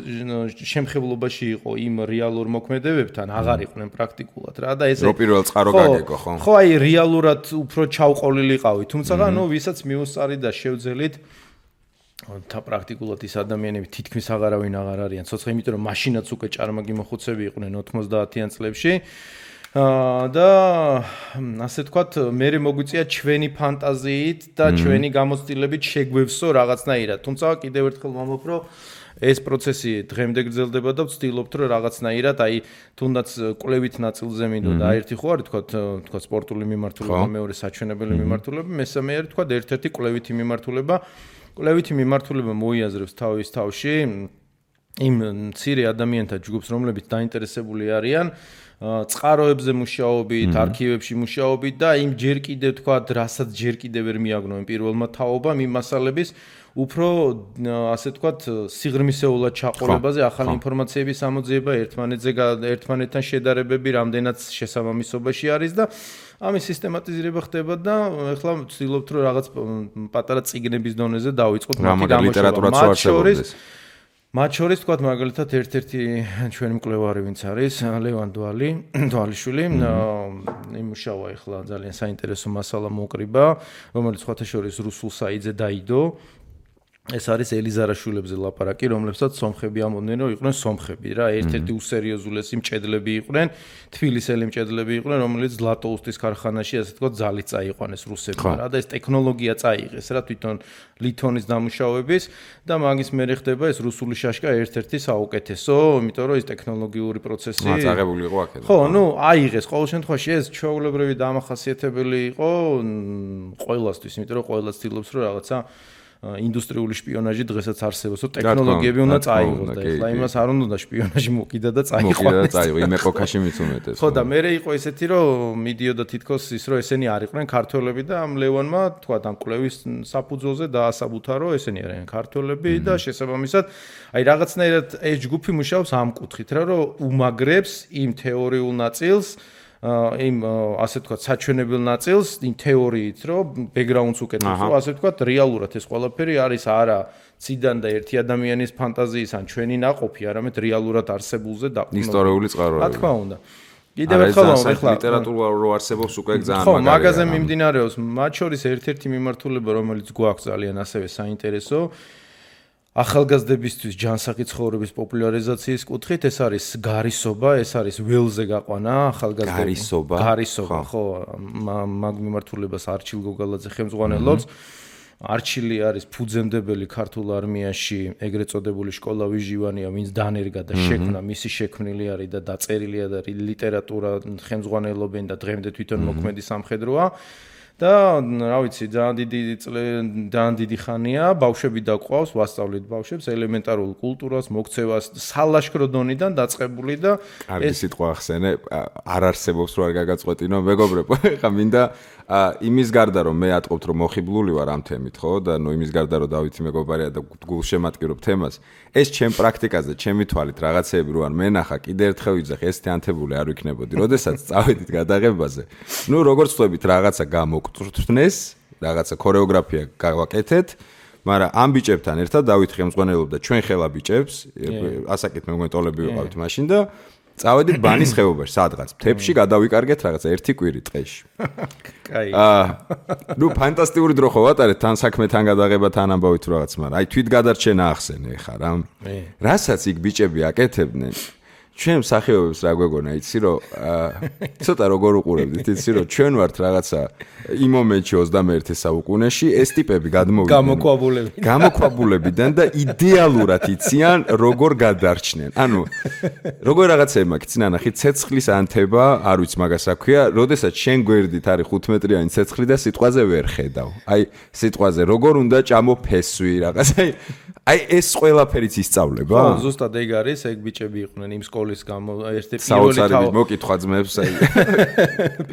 შემხებლობაში იყო იმ რეალურ მოქმედებებთან აღარ იყვნენ პრაქტიკულად რა და ესე რო პირველ წყარო გაგეკო ხო ხო აი რეალურად უფრო ჩავყოლილიყავი თუმცა ნუ ვისაც მიუსწარი და შევძელით და პრაქტიკულად ის ადამიანები თითქმის აღარავინ აღარ არიან ცოცხლ იმიტომ რომ მაშინაც უკვე ჭარმაგი მოხუცები იყვნენ 90-იან წლებში და ასე ვთქვათ მე მოგვიწია ჩვენი ფანტაზიით და ჩვენი გამოცდილებით შეგვევსო რაღაცნაირად თუმცა კიდევ ერთხელ ვამბობ რომ ეს პროცესი დღემდე გრძელდება და ვცდილობთ რომ რაღაცნაირად აი თუნდაც კვლევით ნაწილზე მინდოდა ერთი ხო არის თქვა სპორტული მიმართულება მეორე საჩვენებელი მიმართულება მესამე არის თქვა ერთ-ერთი კვლევითი მიმართულება მოიაზრებს თავის თავში იმ მცირე ადამიანთა ჯგუფს რომლებიც დაინტერესებული არიან წყაროებზე მუშაობით, არქივებში მუშაობით და იმ ჯერ კიდევ თქვა, რასაც ჯერ კიდევ ვერ მიაგნოენ პირველმა თაობამ იმ მასალების უფრო ასე ვთქვათ, სიღრმისეულად ჩაყოლებაზე, ახალი ინფორმაციების ამოძიება, ერთმანეთთან შედარებები, რამდენად შესაბამისობაში არის და ამის სისტემატიზირება ხდება და ეხლა ვცდილობთ რომ რაღაც პატარა წიგნების დონეზე დავიწყოთ ლიტერატურაც მათ შორის თქვათ მაგალითად ერთ-ერთი ჩვენი მკვლევარი ვინც არის ლევან დვალიშვილი იმუშავა ეხლა ძალიან საინტერესო მასალა მოკრიბა რომელიც სხვათა შორის რუსულ საიტზე დაიდო ეს არის ელიზარაშვილებზე ლაპარაკი, რომლებსაც სომხები ამბობდნენ, რომ იყვნენ სომხები რა, ერთ-ერთი უსერიოზულესი მჭედლები იყვნენ, თბილისელი მჭედლები იყვნენ, რომელიც ზლატოუსტის ქარხანაში, ასე ვთქვათ, ძალით წაიყვანეს რუსებმა რა და ეს ტექნოლოგია წაიღეს რა, თვითონ ლითონის დამუშავების და მაგის მერე ხდება ეს რუსული შაშკა ერთ-ერთი საუკეთესო, იმიტომ რომ ეს ტექნოლოგიური პროცესი წაღებული იყო აქედან. ხო, ნუ აიღეს ყოველ შემთხვევაში ეს ჩვეულებრივი დამახასიათებელი იყო ყველასთვის, იმიტომ რომ ყველა ცდილობს რომ რაღაცა ინდუსტრიული შპიონაჟი დღესაც არსებობს, რომ ტექნოლოგიები უნდა წაიღოს და ეხლა იმას არ უნდა შპიონაჟი მოკიდა და წაიყვანოს. იმ ეპოქაში მით უმეტეს. ხო და მე იყო ესეთი, რომ მიდიოდა თითქოს ის, რომ ესენი არ იყვნენ ქართველები და ამ ლევანმა თქვა ამ კვლევის საფუძველზე დაასაბუთა, რომ ესენი არიან ქართველები და შესაბამისად, აი რაღაცნაირად ეს ჯგუფი მუშაობს ამ კუთხით, რომ უმაგრებს იმ თეორიულ ნაწილს იმ ასე ვთქვათ საჩვენებელ ნაწილს იმ თეორიით რომ ბექგრაუნდს უკეთებს რომ ასე ვთქვათ რეალურად ეს ყველაფერი არის არა ციდან და ერთი ადამიანის ფანტაზიის ან ჩვენი ნაყოფი არამედ რეალურად არსებულზე დაყრდნობით ისტორიული წყაროები რა თქმა უნდა კიდევ ერთხელ ეხლა ლიტერატურა რო არსებობს უკვე ძალიან მაგარია ხო მაგაზე მიმდინარეობს მათ შორის ერთ-ერთი მიმართულება რომელიც გვაქვს ძალიან ასევე საინტერესო ახალგაზრდებისთვის ჯანსაღი ცხოვრების პოპულარიზაციის კუთხით ეს არის გარისობა, ეს არის ველზე გაყვანა ახალგაზრდების გარისობა, ხო, მაგ მიმართულებას არჩილ გოგალაძე ხელმძღვანელობს. არჩილი არის ფუძემდებელი ქართულ არმიაში, ეგრეთ წოდებული სკოლა ვიჟივანია, ვინც დანერგა და შექმნა, მისი შექმნილი არის და დაწერილია და ლიტერატურა ხელმძღვანელობენ და დღემდე თვითონ მოქმედი სამხედროა. და რა ვიცი, ძალიან დიდი ხანია, ბავშვები დაყვავს, ვასწავლით ბავშვებს ელემენტარულ კულტურას, მოქცევას, სალაშქრო დონიდან დაწყებული და ეს სიტყვა ახსენე, არ არსებობს რო არ გაგაწყვეტინო, მეგობრებო, ხა მინდა იმის გარდა რომ მე ატყობთ რომ მოხიბლული ვარ ამ თემით, ხო? და ნუ იმის გარდა რომ დავითი მეგობარია და გულშემატკივრობ თემას, ეს ჩემ პრაქტიკაზე, ჩემი თვალით რაღაცეები რო არ მენახა, კიდე ერთხელ ვიძახი, ეს თიანთებული არ ვიქნებოდი. როდესაც წავედით გადაღებაზე, ნუ როგორც ვთქვით, რაღაცა გამოგწვრთნეს, რაღაცა ქორეოგრაფია გავაკეთეთ, მაგრამ ამ ბიჭებთან ერთად დავით ხელმძღვანელობდა ჩვენ ხელა ბიჭებს, ასაკით მე მგონტოლები ვიყავით მაშინ და წავედით ბანის ხეობაში, სადღაც მთებში გადავიკარგეთ რაღაცა ერთი კვირი ტყეში. კაი. ნუ ფანტასტიკური დრო ხო ვატარეთ თან საქმე თან გადაღება თან ამბავით რაღაც, მაგრამ აი თვით გადარჩენა ახსენე ხა რა. რასაც იქ ბიჭები აკეთებდნენ, ჩვენ მსახიობებს რა გვეგონა, იცი რომ ცოტა როგორ უყურებდით, იცი რომ ჩვენ ვართ რაღაცა იმ მომენტში 21 საუკუნეში ეს ტიპები გადმოვიდნენ გამოქვაბულებიდან და იდეალურად იციან როგორ გადარჩნენ. ანუ როგორ რაღაცა ემაქციან, ნახე ცეცხლის ანთება, არ ვიცი მაგას რა ქვია, როდესაც შენ გვერდით არის 5 მეტრიანი ცეცხლი და სიტყვაზე ვერ ხედავ. აი სიტყვაზე როგორ უნდა ჭამოფესვი რაღაცა აი ეს ყველაფერიც ისწავლება? ხო, ზუსტად ეგ არის, ეგ ბიჭები იყვნენ იმ სკოლის გამო, ერთი პირველი საოცარი მოკითხვა ძმებს, აი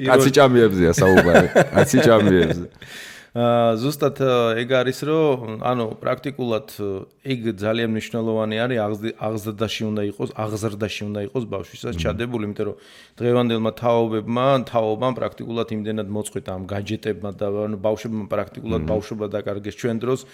კაცი ჭამიებზეა საუბარი, კაცი ჭამიებზე. ზუსტად ეგ არის, რომ ანუ პრაქტიკულად ეგ ძალიან მნიშვნელოვანი არის, აღზრდაში უნდა იყოს ბავშვისაც ჩადებული, იმიტომ რომ დღევანდელმა თაობამ პრაქტიკულად იმდენად მოწყვიტა ამ გაჯეტებმა და ანუ ბავშვებმა პრაქტიკულად ბავშვობა დაკარგეს ჩვენ დროს.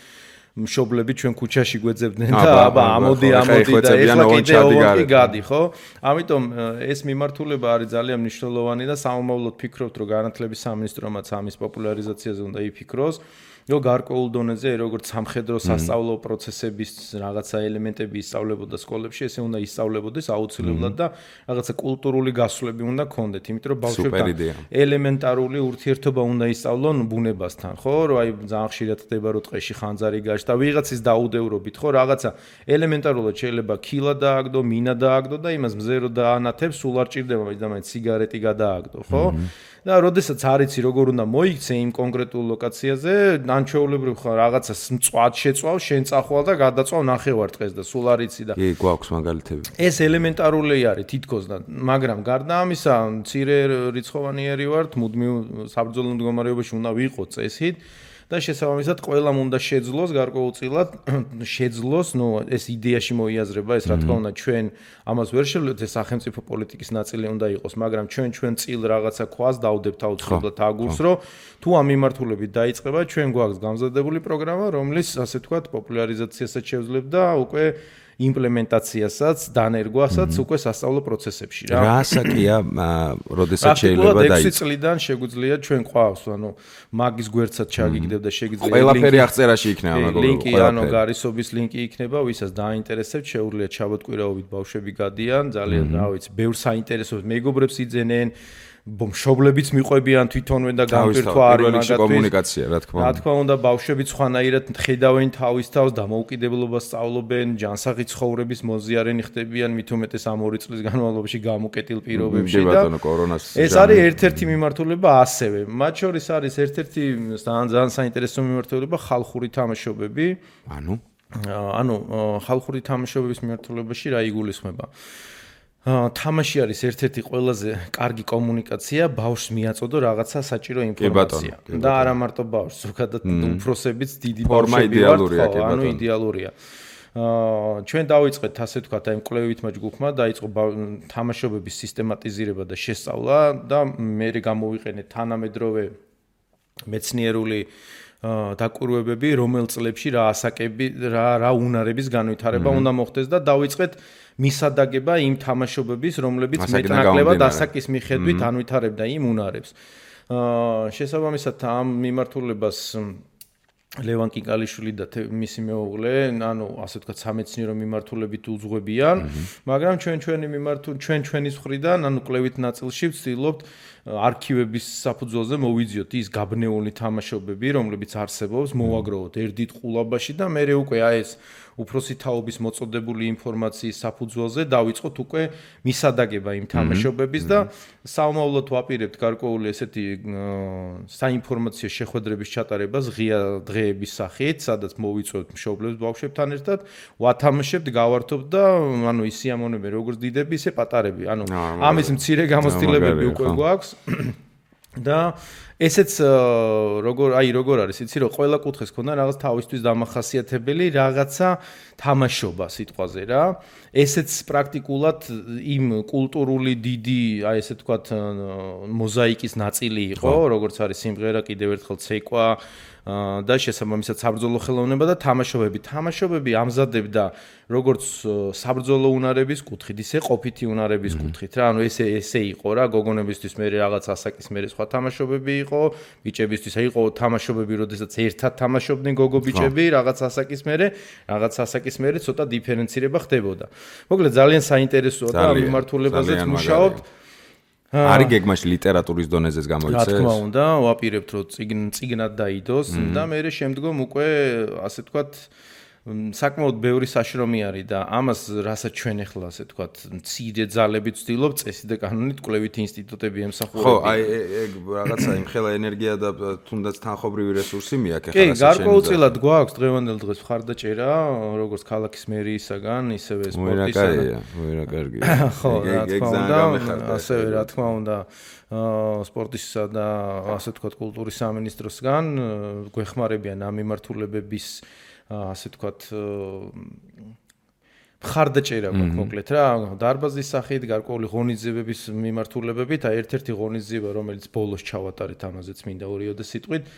მშობლები ჩვენ ქუჩაში გვეძებდნენ და აბა ამოდი და ეხლა კიდე ოღონდ გადი, ხო? ამიტომ ეს მიმართულება არის ძალიან მნიშვნელოვანი და სამომავლოდ ფიქრობთ, რომ განათლების სამინისტრომაც ამის პოპულარიზაციაზე უნდა იფიქროს. რომ გარკვეულ დონეზე როგორც სამხედრო სასწავლო პროცესების რაღაცა ელემენტები ისწავლებოდა სკოლებში, ესე უნდა ისწავლებოდეს აუცილებლად და რაღაცა კულტურული გასვლები უნდა ქონდეთ, იმიტომ რომ ბავშვებთან ელემენტარული ურთიერთობა უნდა ისწავლონ ბუნებასთან, ხო? რომ აი ძალიან ხშირად ხდება რომ ტყეში ხანძარი გაჩნდა, ვიღაცის დაუდევრობით, ხო? რაღაცა ელემენტარულად შეიძლება ქილა დააგდო, მინა დააგდო და იმას მზე რო დაანათებს, სულ არ ჭირდება მაინც სიგარეტი გადააგდო, ხო? და როდესაც არიცი როგორ უნდა მოიქცე იმ კონკრეტულ ლოკაციაზე, ან ჩვეულებრივ ხარ რაღაცას მწვად შეწვალ, შენ წახვალ და გადაწვალ ნახევარ დღეს და სულ არიცი და კი, გვაქვს მაგალითები. ეს ელემენტარული არის თითქოს და მაგრამ გარდა ამისა, მცირე რიცხოვანიერი ვართ, მუდმივ საბრძოლო მდგომარეობაში უნდა ვიყოთ წესით. და შესაბამისად ყველამ უნდა შეძლოს გარკვეულწილად შეძლოს, ნუ ეს იდეაში მოიაზრება, ეს რა თქმა უნდა ჩვენ ამას ვერ შევლებთ, ეს სახელმწიფო პოლიტიკის ნაწილი უნდა იყოს, მაგრამ ჩვენ წილ რაღაცა ქვას დავდებთ აუცილებლად აგურს, რომ თუ ამ მიმართულებით დაიწყება, ჩვენ გვაქვს გამზადებული პროგრამა, რომლის ასე ვთქვათ, პოპულარიზაციასაც შევძლებთ და უკვე იმპლემენტაციასაც, დანერგვასაც უკვე სასწავლო პროცესებში რა. რა ასაკია, როდესაც შეიძლება დაიწყოს? 6 წლიდან შეგვიძლია ჩვენ ყავს, ანუ მაგის გვერდსაც ჩაგიგდებ და შეგიძლია ყველაფერი აღწერაში იქნება მაგალითად. ლინკი, ანუ გარისობის ლინკი იქნება, ვისაც დაინტერესებთ, შეუძლიათ ჩაბოტკვირაობით ბავშვები გადიან, ძალიან რა ვიცი, ბევრ საინტერესო მეგობრებს იძენენ. მშობლებიც მიყვებიან თვითონვე და გამპირთვა არის მაგათთვის კომუნიკაცია, რა თქმა უნდა. რა თქმა უნდა, ბავშვებიც ხვანაირად ხედავენ თავის თავს, დამოუკიდებლობას სწავლობენ, ჯანსაღი ცხოვრების მოზიარენი ხდებიან, მით უმეტეს ამ 2 წლის განმავლობაში გამოკეტილ პირობებში და ეს არის ერთ-ერთი მიმართულება ასევე. მათ შორის არის ერთ-ერთი ძალიან საინტერესო მიმართულება ხალხური თამაშობები. ანუ ხალხური თამაშობების მიმართულებაში რა იგულისხმება? თამაში არის ერთ-ერთი ყველაზე კარგი კომუნიკაცია, ბავშვს მიაწოდო რაღაცა საჭირო ინფორმაცია. და არა მარტო ბავშვს, ზოგადად უფროსებიც დიდი ბავშვები ვართ, ანუ იდეალურია. ჩვენ დავიწყეთ ასე ვთქვათ, აი მკვლევითა ჯგუფმა დაიწყო თამაშობების სისტემატიზირება და შესწავლა და მე გამოვიყენეთ თანამედროვე მეცნიერული დაკვირვებები, რომელ წლებში რა ასაკები, რა უნარების განვითარება უნდა მოხდეს და დავიწყეთ მისადაგება იმ თამაშობების, რომლებიც მეტნაკლებად ასაკის მიხედვით ანვითარებდა იმ უნარებს. შესაბამისად ამ მიმართულებას ლევან კიკალიშვილი და მისი მეუღლე, ანუ ასე ვთქვათ, სამეცნიერო მიმართულებით უძღვებიან, მაგრამ ჩვენის მხრიდან, ანუ კვლევით ნაწილში ვცდილობთ არქივების საფუძველზე მოვიძიოთ ის გაბნეული თამაშობები, რომლებიც არსებობს, მოვაგროვოთ ერთ დიდ ყულაბაში და მე უკვე აი ეს უფროსი თაობის მოწოდებული ინფორმაციის საფუძველზე დავიწყოთ უკვე მისადაგება იმ თამაშობების და საომავლოდ ვაპირებთ გარკვეული ესეთი საინფორმაციო შეხვედრების ჩატარებას ღია დღეების სახით, სადაც მოვიწვევთ მშობლებს ბავშვებთან ერთად, ვათამაშებთ, გავართობთ და ანუ ის სიამოვნებები როგორც დიდები, ისე პატარები. ანუ ამის მცირე გამოცდილებები უკვე გვაქვს. და ესეც როგორ არის, იცი რომ ყველა კუთხეს ქონდა რაღაც თავისთვის დამახასიათებელი რაღაცა თამაშობა სიტყვაზე რა. ესეც პრაქტიკულად იმ კულტურული დიდი, აი ესე ვთქვათ, მოზაიკის ნაწილი იყო, როგორც არის სიმღერა, კიდევ ერთხელ ცეკვა და შესაბამისად საბრძოლო ხელოვნება და თამაშობები. თამაშობები ამზადებდა როგორც საბრძოლო უნარების კუთხით, ისე ყოფითი უნარების კუთხით რა. ანუ ესე იყო რა, გოგონებისთვის მე რაღაც ასაკის მე სხვა თამაშობები იყო ბიჭებისთვის იყო თამაშობები როდესაც ერთად თამაშობდნენ გოგო ბიჭები რაღაც ასაკის მერე ცოტა დიფერენცირება ხდებოდა მოკლედ ძალიან საინტერესოა და ამ მიმართულებაზეც მუშაობთ არის გეგმაში ლიტერატურის დონეზეც გამოიცეს რა თქმა უნდა ვაპირებთ რომ წიგნად დაიდოს და მე შემდგომ უკვე ასე ვთქვათ საკმაოდ ბევრი საშრომი არის და ამას რასაც ჩვენ ახლა ასე ვთქვათ მცირე ძალებით ვცდილობ წესი და კანონით კვლევითი ინსტიტუტები ემსახურებიან. ხო, აი ეგ რაღაცა იმ ხელა ენერგია და თუნდაც თანხობრივი რესურსი მიაქვს ახლა რასაც გარკვეულწილად გვაქვს დღევანდელ დღეს მხარდაჭერა როგორც ქალაქის მერიისაგან ისევე სპორტისაგან. მოირა კარგია. ხო, რა თქმა უნდა, ასევე რა თქმა უნდა სპორტისა და ასე ვთქვათ კულტურის სამინისტროსგან გვეხმარებიან ამ მიმართულებების ასე ვთქვათ მხარდაჭერა გვაქვს მოკლედ რა დარბაზის სახით გარკვეული ღონისძიებების მიმართულებებით ერთ-ერთი ღონისძიება რომელიც ბოლოს ჩავატარეთ ამაზეც მინდა ორიოდე სიტყვით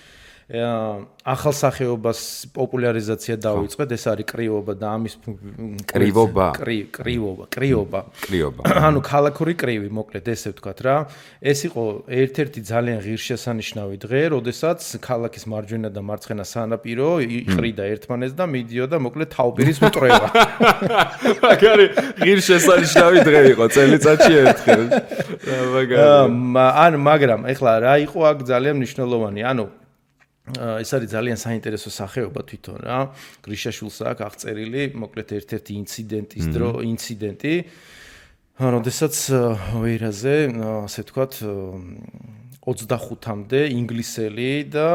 ახალ სახეობას პოპულარიზაცია დაუწყეთ ეს არის კრივობა და ამის კრივობა ანუ ქალაქური კრივი მოკლედ ესე ვთქვათ რა ეს იყო ერთ-ერთი ძალიან ღირსშესანიშნავი დღე როდესაც ქალაქის მარჯვენა და მარცხენა სანაპირო იყრიდა ერთმანეთს და მიდიოდა მოკლედ თავპირის მტრევა მაგარი ღირსშესანიშნავი დღე იყო წელიწადში ერთხელ მაგრამ ეხლა რა იყო აქ ძალიან მნიშვნელოვანი ანუ ეს არის ძალიან საინტერესო სახეობა თვითონ რა გრიშაშვილს აქვს აღწერილი მოკლედ ერთ-ერთი ინციდენტი როდესაც ვეირაზე ასე ვთქვათ 25-მდე ინგლისელი და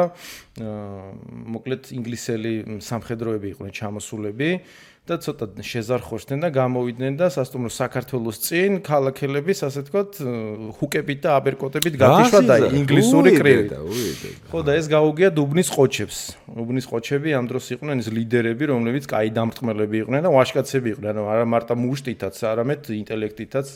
მოკლედ ინგლისელი სამხედროები იყვნენ ჩამოსულები და ცოტა შეზარხოშდნენ და გამოვიდნენ და სასტუმრო საქართველოს წინ ქალაქელების ასე ვთქვათ ჰუკებით და აბერკოტებით გათიშვა და ინგლისური კრივით. ხო და ეს გაუგია დუბნის ყოჩებს. დუბნის ყოჩები ამ დროს იყვნენ ის ლიდერები, რომლებიც კაი დამრტყმელები იყვნენ და ვაჟკაცები იყვნენ. ანუ არა მარტო მუშტითაც, არამედ ინტელექტითაც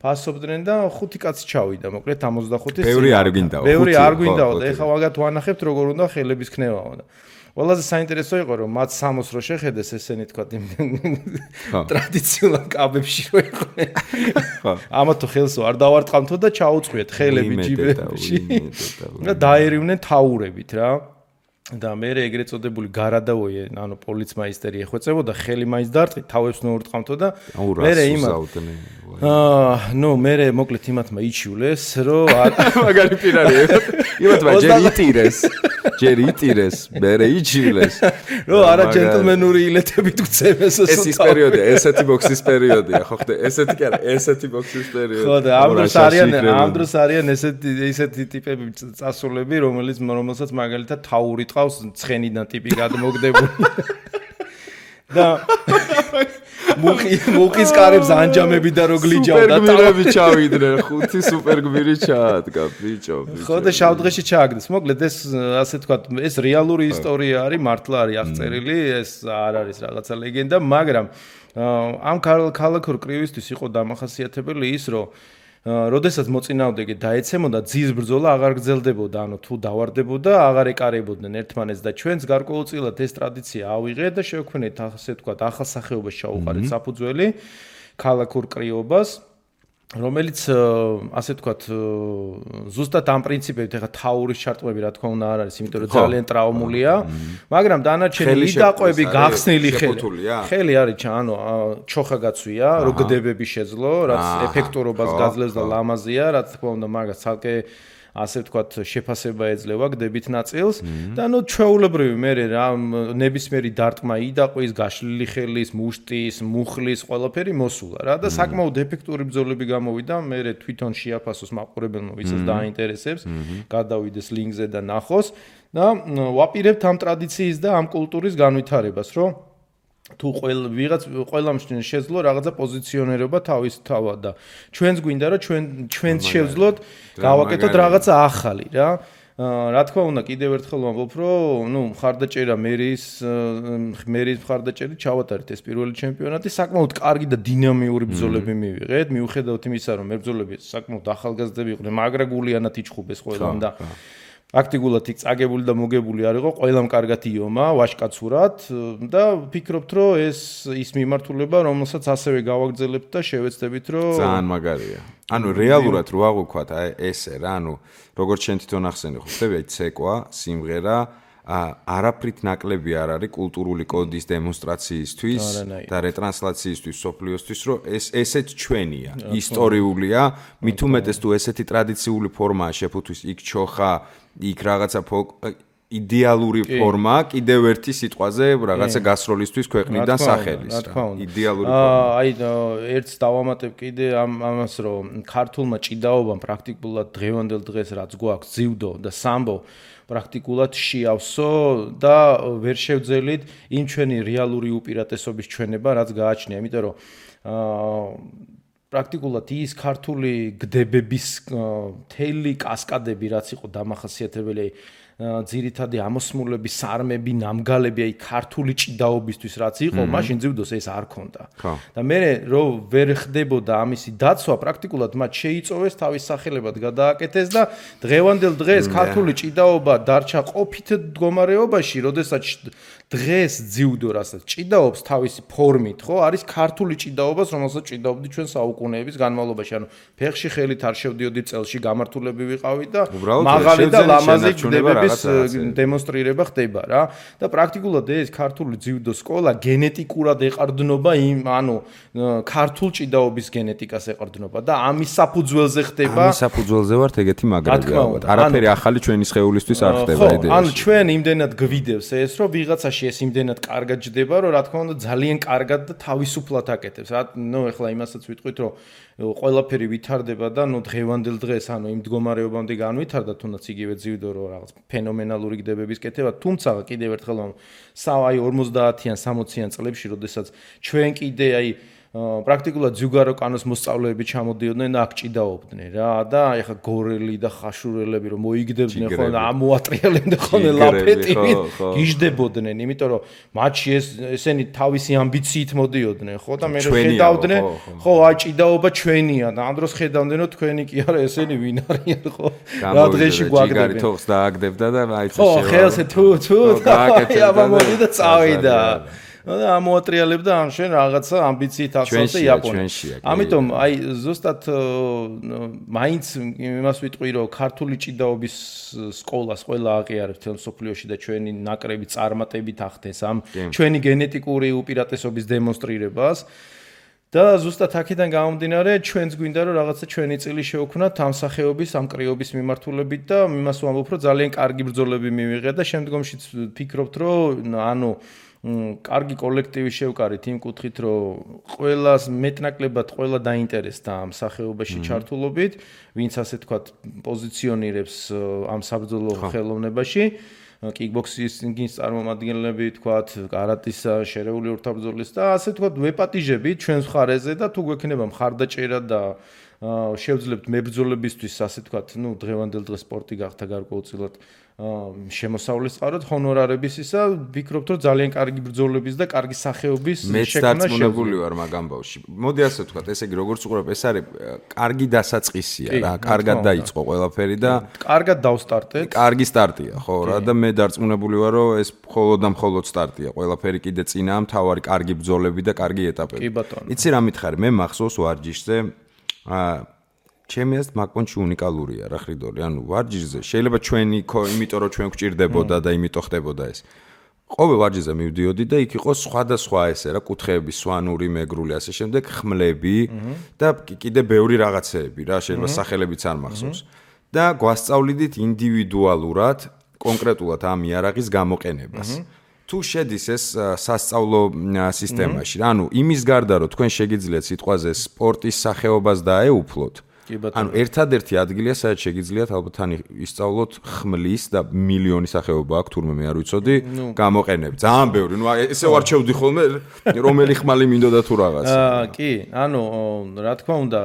ფასობდნენ და 5 კაცი ჩავიდა, მოკლედ 65-ის. ბევრი არ გვინდაო. ბევრი არ გვინდაო და ეხლა ვაგათ ვანახებთ როგორ უნდა ხელების ქნევაო და ყველაზე საინტერესო იყო რომ მათ სამოს რო შეხედეს ესენი თქვა ტრადიციულად კაბებში რო იყვნენ. ამათ ხელს არ დავარტყამთო და ჩაუწყვიეთ ხელები ჯიბებში. და დაერივნენ თაურებით რა. და მე ეგრეთ წოდებული გარადაოიე, ანუ პოლიცმაისტერი ეხვეწებოდა, ხელი მაინც დარტყით, თავებს ნოურტყამთო და მე მოკლედ იმათმა იჩივლეს, რომ მაგარი პირარი იმათმა ჯერ იტირეს, მერე იჩივლეს. რო არა ჯენტლმენური ილეთებით გწევეს ეს ის პერიოდია, ესეთი ბოქსის პერიოდია, ხო ხდე, ესეთი კი არა, ესეთი ბოქსის პერიოდი. ხო და ამ დროს არიან ესეთი ტიპები წასულები, რომელსაც მაგალითად თაური ყავს ცხენიდან ტიპი გადმოგდებული. და მუხის კარებს ანჯამები და რო გლიჯავდა სუპერგმირები ჩავიდნენ 5 სუპერგმირი ჩაადგა ბიჭო ხო და შავდღეში ჩააგდეს მოკლედ ეს ასე თქვა ეს რეალური ისტორია არის მართლა არის აღწერილი ეს არ არის რაღაცა ლეგენდა მაგრამ ამ ქალაქურ კრივისთვის იყო დამახასიათებელი ის რომ როდესაც მოწინააღმდეგე დაეცემოდა ძის ბრძოლა აღარ გრძელდებოდა ანუ თუ დავარდებოდა აღარ ეკარებოდნენ ერთმანეთს და ჩვენს გარკვეულწილად ეს ტრადიცია ავიღეთ და შევქმნით ასე ვთქვათ ახალ სახეობას ჩაუყარეთ საფუძველი ქალაქურ კრივობას რომელიც ასე ვთქვათ ზუსტად ამ პრინციპებით ეხა თაურის ჩარტყმები რა თქმა უნდა არ არის იმიტომ რომ ძალიან ტრავმულია მაგრამ დანარჩენი იდაყვები გახსნილი ხელი არის ანუ ჩოხა გაცვია რო გდებები შეძლო რაც ეფექტურობას გაძლევს და ლამაზია რა თქმა უნდა მაგას ცალკე ასე ვთქვათ შეფასება ეძლევა გდებით ნაწილს და ნუ ჩვეულებრივი მე რა ნებისმიერი დარტყმა იდაყვის გაშლილი ხელის მუშტის მუხლის ყველაფერი მოსულა რა და საკმაოდ ეფექტური ბრძოლები გამოვიდა მე თვითონ შეაფასოს მაყურებელმა ვისაც დაინტერესებს გადავიდეს ლინკზე და ნახოს და ვაპირებთ ამ ტრადიციის და ამ კულტურის განვითარებას რომ თუ ყველამ შეძლო რაღაცა პოზიციონერობა თავის თავად და ჩვენს გვინდა რომ ჩვენც შევძლოთ გავაკეთოთ რაღაცა ახალი რა რა თქმა უნდა კიდევ ერთხელ ვამბობ რომ ნუ მხარდაჭერა მერის მხარდაჭერით ჩავატარეთ ეს პირველი ჩემპიონატი საკმაოდ კარგი და დინამიური ბრძოლები მივიღეთ მიუხედავად იმისა რომ მებრძოლები საკმაოდ ახალგაზრდები იყვნენ მაგრა გულიანად იჩხუბეს ყველამ და აქტიურად წაგებული და მოგებული არ იყო, ყველამ კარგად იომა, ვაჟკაცურად და ვფიქრობთ, რომ ეს ის მიმართულება, რომელსაც ასევე გავაგრძელებთ და შევეცდებით, რომ ძალიან მაგარია. ანუ რეალურად რო აღვქვათ, აი ესე რა, ანუ როგორც შენ თვითონ ახსენე, ხო ხდები აი ცეკვა, სიმღერა არაფრით ნაკლები არ არის კულტურული კოდის დემონსტრაციისთვის და რეტრანსლაციისთვის სოფლიოსთვის, რომ ესეც ჩვენია, ისტორიულია, მით უმეტეს თუ ესეთი ტრადიციული ფორმაა შეფუთვის იქ ჩოხა, იქ რაღაცა იდეალური ფორმა, კიდევ ერთი სიტყვაზე რაღაცა გასროლისთვის ქვეყნიდან სახელის რა. იდეალური ფორმა. აი ერთს დავამატებ კიდე ამას, რომ ქართულმა ჭიდაობამ პრაქტიკულად დღევანდელ დღეს რაც გვაქვს ძიუდო და სამბო პრაქტიკულად შეავსო და ვერ შევძელით იმ ჩვენი რეალური უპირატესობის ჩვენება, რაც გააჩნია, იმიტომ რომ პრაქტიკულად ის ქართული გდებების თელი კასკადები, რაც იყო დამახასიათებელი ძირითადი ამოსმულები, სარმები, ნამგალები, აი ქართული ჭიდაობისთვის რაც იყო, მაშინ ძიუდოს ეს არ ქონდა. და მე რომ ვერ ხდებოდა ამისი დაცვა, პრაქტიკულად მათ შეიწოვეს თავის სახელებად გადააკეთეს და დღევანდელ დღეს ქართული ჭიდაობა დარჩა ყოფით მდგომარეობაში, როდესაც დღეს ძიუდო რასაც ჭიდაობს თავისი ფორმით, ხო, არის ქართული ჭიდაობას, რომელსაც ჭიდაობდი ჩვენ საუკუნეების განმავლობაში. ანუ ფეხში ხელით არ შევდიოდი წელში, გამართულები ვიყავით და მაღალი და ლამაზი გდებების დემონსტრირება ხდება რა. და პრაქტიკულად ეს ქართული ძიუდო სკოლა გენეტიკურად ეყრდნობა იმ, ანუ ქართულ ჭიდაობის გენეტიკას ეყრდნობა და ამის საფუძველზე ხდება. ამის საფუძველზე ვართ ეგეთი მაგრები ალბათ. არაფერი ახალი ჩვენი სხეულისთვის არ ხდება იდეაში. ანუ ჩვენ იმდენად გვიდევს ეს, რომ ვიღაცაში ეს იმდენად კარგად ჯდება, რომ რა თქმა უნდა ძალიან კარგად და თავისუფლად აკეთებს. ნუ ეხლა იმასაც ვიტყვით, რომ ყველაფერი ვითარდება და ნუ დღევანდელ დღეს, ანუ იმ მდგომარეობამდე განვითარდა, თუნდაც იგივე ძიუდო რომ რაღაც ფენომენალური გდებების კეთება, თუმცა კიდევ ერთხელ აი 50-იან 60-იან წლებში, როდესაც ჩვენ კიდე აი პრაქტიკულად ზუგარო კანოს მოსწავლეები ჩამოდიოდნენ და აქ ჭიდაობდნენ რა და ეხა გორელი და ხაშურელები რომ მოიგდებდნენ ხო და ამოატრიალებდნენ ხოლმე ლაფეტით გიждდებოდნენ იმიტომ რომ მათში ესენი თავისი ამბიციით მოდიოდნენ ხო და მე ხედავდნენ ხო აი ჭიდაობა ჩვენია და ამ დროს ხედავდნენ რომ თქვენი კი არა ესენი ვინ არიან ხო რა დღეში გვაგდებენ თოხს დააგდებდა და აი ხო ხელზე თუ აბა მოდი და წავიდა და ამოატრიალებდა ამ შენ რაღაცა ამბიციით ახსოვდა იაპონიაში. ამიტომ აი ზუსტად მაინც იმას ვიტყვი რომ ქართული ჭიდაობის სკოლას ყველა აღიარებს თელ სოფლიოში და ჩვენი ნაკრები წარმატებით ახდენს ამ ჩვენი გენეტიკური უპირატესობის დემონსტრირებას. და ზუსტად აქედან გამომდინარე ჩვენც გვინდა რომ რაღაცა ჩვენი წილი შევქვნათ ამ სახეობის ამ კრიობის მიმართულებით და იმას ვამბობ რომ ძალიან კარგი ბრძოლები მივიღეთ და შემდგომშიც ვფიქრობთ რომ ანუ კარგი კოლექტივი შევკარით იმ კუთხით, რომ ყველას მეტნაკლებად ყველა დაინტერესდა ამ სახეობაში ჩართულობით, ვინც ასე თქვათ პოზიციონირებს ამ საბრძოლო ხელოვნებაში, კიკბოქსინგის წარმომადგენლები, თქვათ, კარატის შერეული ორთაბრძოლის და ასე თქვათ ვეპატიჟებით ჩვენს მხარეზე და თუ გვექნება მხარდაჭერა და შევძლებთ მებრძოლებისთვის, ასე თქვათ, ნუ დღევანდელ დღეს სპორტი გახდა გარკვეულწილად შემოსავლის წყაროდ ჰონორარების ისა ვფიქრობთ რომ ძალიან კარგი ბრძოლების და კარგი სახეობის შექმნა შეგვიძლია. მეც დარწმუნებული ვარ მაგ ამბავში. მოდი ასე ვთქვათ, ესე იგი როგორც უყურებ, ეს არის კარგი დასაწყისია რა, კარგად დაიწყო ყველაფერი და კარგად დავსტარტეთ. კარგი სტარტია, ხო რა და მე დარწმუნებული ვარ რომ ეს მხოლოდ და მხოლოდ სტარტია. ყველაფერი კიდე წინაა, მთავარი კარგი ბრძოლები და კარგი ეტაპები. კი ბატონო. იცი რა მითხარი, მე მახსოვს ვარჯიშზე ჩემი აზრით მაგ-პონჩი უნიკალურია რა ხრიდორი, ანუ ვარჯიშზე შეიძლება ჩვენი იმიტომ რომ ჩვენ გვჭირდებოდა და იმიტომ ხდებოდა ეს. ყოველ ვარჯიშზე მივდიოდი და იქ იყო სხვადასხვა ესე რა კუთხეები, სვანური, მეგრული, ასე შემდეგ, ხმლები და კიდე ბევრი რაღაცეები რა, შეიძლება სახელებიც არ მახსოვს. და გვასწავლიდით ინდივიდუალურად, კონკრეტულად ამ იარაღის გამოყენებას. თუ შედის ეს სასწავლო სისტემაში, ანუ იმის გარდა რომ თქვენ შეგიძლიათ სიტყვაზე სპორტის სახეობას დაეუფლოთ, ანუ ერთადერთი ადგილია, სადაც შეგიძლიათ ალბათ თან ისწავლოთ ხმლის და მილიონი სახეობა აქვს, თურმე მე არ ვიცოდი, გამოყენები. ძალიან ბევრი. ნუ ესე ვარჩევდი ხოლმე, რომელი ხმალი მინდოდა თუ რაღაცა. კი, ანუ რა თქმა უნდა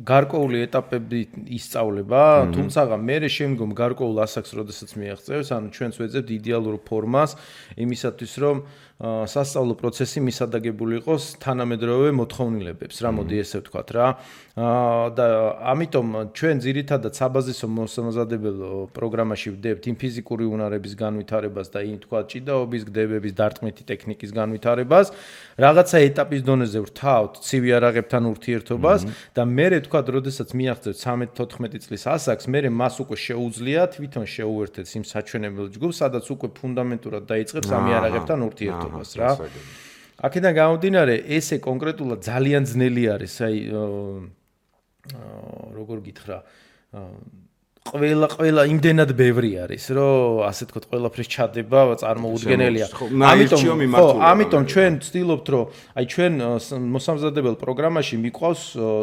გარკვეული ეტაპები ისწავლება, თუმცა მე შემდგომ გარკვეულ ასაკს, როდესაც მიაღწევს, ანუ ჩვენც ვეძებთ იდეალურ ფორმას იმისათვის, რომ სასწავლო პროცესი მისადაგებული იყოს თანამედროვე მოთხოვნილებებს, რა მოდი ესე ვთქვათ რა. და ამიტომ ჩვენ ძირითადად საბაზისო მოსამზადებელ პროგრამაში ვდებთ იმ ფიზიკური უნარების განვითარებას და იმ თქვა ჭიდაობის, გდებების, დარტყმითი ტექნიკის განვითარებას, რაღაცა ეტაპის დონეზე ვთავთ ცივი არაღებთან ურთიერთობას და მერე თქვა, როდესაც მიაღწევთ 13-14 წლის ასაკს, მერე მას უკვე შეუძლია თვითონ შეუერთეთ იმ საჩვენებელ ჯგუფს, სადაც უკვე ფუნდამენტურად დაიწყებს ამ არაღებთან ურთიერთობას რა. აქედან გამომდინარე, ესე კონკრეტულად ძალიან ძნელი არის, აი როგორ გითხრა, ყველა იმდენად ბევრი არის, რომ ასე თქვა, ყველაფრის ჩადება წარმოუდგენელია. ამიტომ ჩვენ ვცდილობთ, რომ აი ჩვენ მოსამზადებელ პროგრამაში მიყვავს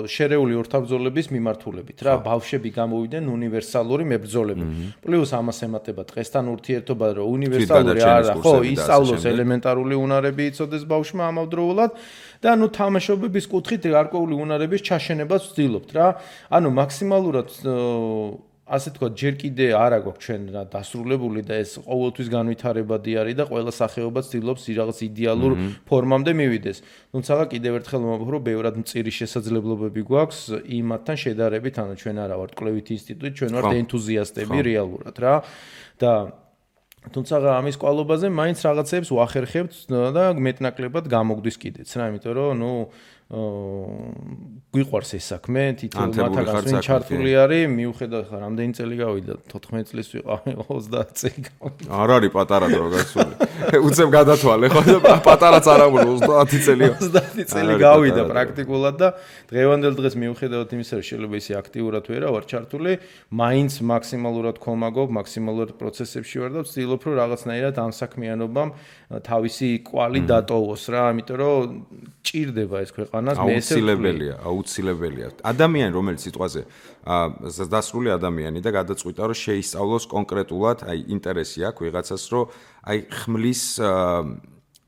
შერეული ორთაბრძოლების მიმართულებით, რა, ბავშვები გამოვიდნენ უნივერსალური მებრძოლები. პლუს ამას ემატება დღესთან ურთიერთობა, რომ უნივერსალური არა, ხო, ისწავლოს ელემენტარული უნარები იცოდეს ბავშვმა ამავდროულად. და ნუ თამაშობების კუთხით გარკვეული უნარების ჩაშენებას ვცდილობთ რა. ანუ მაქსიმალურად ასე თქვა, ჯერ კიდე არ აქვს ჩვენ რა დასრულებული და ეს ყოველთვის განვითარებადი არის და ყველა სახეობა ცდილობს რაღაც იდეალურ ფორმამდე მივიდეს. თუმცა კიდევ ერთხელ მომავალ რომ ბევრად მწირი შესაძლებლობები გვაქვს იმათთან შედარებით, ანუ ჩვენ არა ვართ კვლევითი ინსტიტუტი, ჩვენ ვართ ენთუზიასტები რეალურად რა. და თუმცა ამის კვალობაზე მაინც რაღაცებს ვახერხებთ და მეტნაკლებად გამოგვდის კიდეც რა, იმიტომ რომ ნუ გვიყვარს ეს საქმე, თითოეულ მათგანს ვინ ჩართული არის, მიუხედავად ხა რამდენი წელი გავიდა, 14 წლის ვიყავი, 30 წელი გავიდა. არ არის პატარა დრო გასული. უცებ გადათვალე ხო და პატარაც არ ამბობ 30 წელი. 30 წელი გავიდა პრაქტიკულად და დღევანდელ დღეს მიუხედავად იმისა, რომ შეიძლება ისე აქტიურად ვერა ვარ ჩართული, მაინც მაქსიმალურად ხომაგობ, მაქსიმალურად პროცესებში ვარ და ვცდილობ რომ რაღაცნაირად ამ საქმიანობამ თავისი კვალი დატოვოს რა, ამიტომ რომ ჭირდება ეს ქვეყანას მე ესე აუცილებელია. ადამიანი რომელიც სიტყვაზე დასრული ადამიანი და გადაწყვიტა რომ შეისწავლოს კონკრეტულად, აი ინტერესი აქვს ვიღაცას რომ აი ხმლის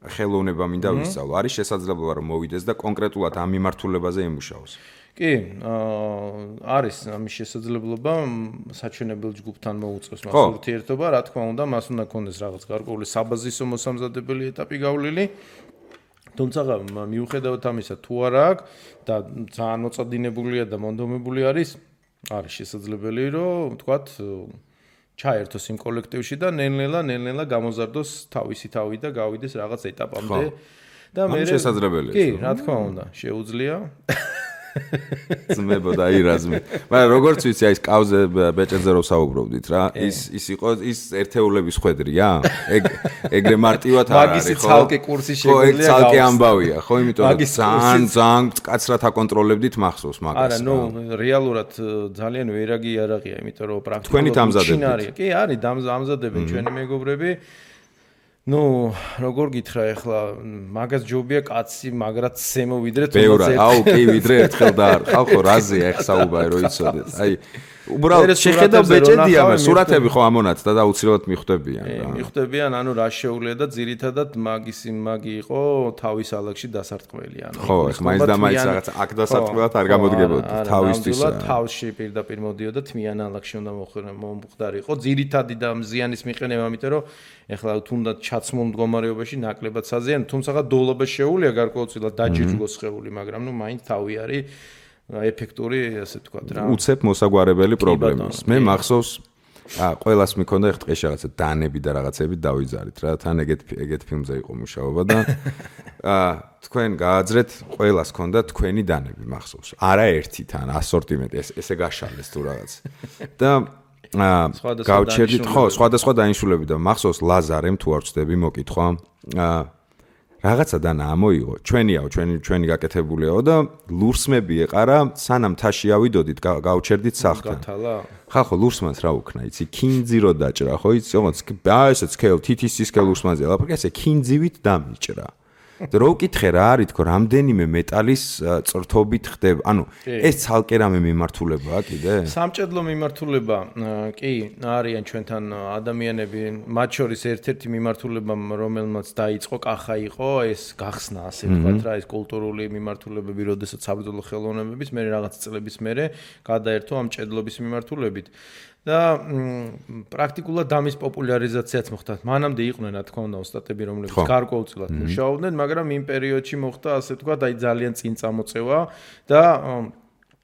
ხელოვნება მინდა ვისწავლო. არის შესაძლებლობა რომ მოვიდეს და კონკრეტულად ამ მიმართულებაზე იმუშაოს. კი, არის ამის შესაძლებლობა საჩვენებელ ჯგუფთან მოუწევს მას ურთიერთობა, რა თქმა უნდა, მას უნდა ქონდეს რაღაც გარკვეული საბაზისო მოსამზადებელი ეტაპი გავლილი. თუმცა მიუხედავად ამისა, თუ არა აქვს და ძალიან მოწადინებულია და მონდომებული არის შესაძლებელი, რომ ვთქვათ, ჩაერთოს იმ კოლექტივში და ნელ-ნელა გამოზარდოს თავისი თავი და გავიდეს რაღაც ეტაპამდე. და მე შესაძლებელია. კი, რა თქმა უნდა, შეუძლია. ძმებო და ირაზმე. მაგრამ როგორც ვიცი, აი ეს კავზე ბეჭედზე რო საუბრობდით რა, ის იყო ის ერთეულების ხვედრია? ეგრე მარტივად არ არის, ხო? მაგისი ცალკე კურსი შეგვიძლია. ხო, ცალკე ამბავია, ხო, იმიტომ რომ ძალიან მკაცრად აკონტროლებდით მახსოვს მაგას. არა, ნუ რეალურად ძალიან ვერაგი არაღია, იმიტომ რომ პრაქტიკულად თქვენი დამზადებთ. კი, არის დამზადებენ ჩვენი მეგობრები. ნუ როგორ გითხრა ახლა მაგას ჯობია კაცი მაგრად ზემოვიდრე თუნდაც აუ კი ვიდრე ერთხელ და არ ხალხო რაზეა ეხსაუბარი რომ იცოდეთ აი უბრალოდ შეხედავ ბეჭედია მე სურათები ხო ამონათ და აუცილებლად მიხვდებიან რა მიხვდებიან ანუ რა შეუძლია და ძირითადად მაგი იყო თავის ალაგში დასარტყმელი ანუ ხო ეხლა მაინც და მაინც რაღაც აქ დასარტყმელად არ გამოდგებოდა თავისთვის თავში პირდაპირ მოდიოდა თმიან ალაგში უნდა მომხდარიყო ძირითადი და მზიანის მიყენება ამიტომ რომ ეხლა თუნდაც ჩაცმულ მდგომარეობაში ნაკლებად საზიანო თუმცა დოლობა შეუულია გარკვეულწილად დაჯიჯგოს ხეული მაგრამ ნუ მაინც თავი არის ეფექტური ასე ვთქვათ რა. უცებ მოსაგვარებელი პრობლემის. მე მახსოვს ყველას მქონდა ეხ დღეში რაღაცა დანები და რაღაცები დავიძარით რა. თან ეგეთ ფილმზე იყო მუშაობა და თქვენ გააძრეთ ყველას ქონდა თქვენი დანები მახსოვს. არა ერთი თან ასორტიმენტი ესე გაშალეს თუ რაღაც. და გავჩერდით ხო სხვადასხვა დანიშნულები და მახსოვს ლაზარემ თუ არ ვწდები მოკითხვა რაღაცა დანა ამოიღო ჩვენიაო ჩვენი გაკეთებულიაო და ლურსმები ეყარა სანამ თაში ავიდოდით გავჩერდით სახლთან ხახო ლურსმანს რა უქნა იცი კინძი რო დაჭრა ხო იცი ოღონდ ესე სკელ თითის სკელ ლურსმანზე ლაპარაკი ესე კინძივით დამიჭრა და რო ვკითხე რა არის თქო რამდენიმე მეტალის წრთობით ხდება ანუ ეს ცალკე რამე მიმართულებაა კიდე სამჭედლო მიმართულება კი არიან ჩვენთან ადამიანები მათ შორის ერთ-ერთი მიმართულება რომელმაც დაიწყო კახა იყო ეს გახსნა ასე ვთქვათ რა ეს კულტურული მიმართულებები როდესაც საბრძოლო ხელოვნებების მე რაღაც წლების მერე გადაერთო ამ ჭედლობის მიმართულებით და პრაქტიკულად დამის პოპულარიზაციაც მოხდა. მანამდე იყვნენ, რა თქმა უნდა, ოსტატები, რომლებიც გარკვეულწილად მუშაობდნენ, მაგრამ იმ პერიოდში მოხდა, ასე ვთქვათ, აი ძალიან წინ წამოწევა და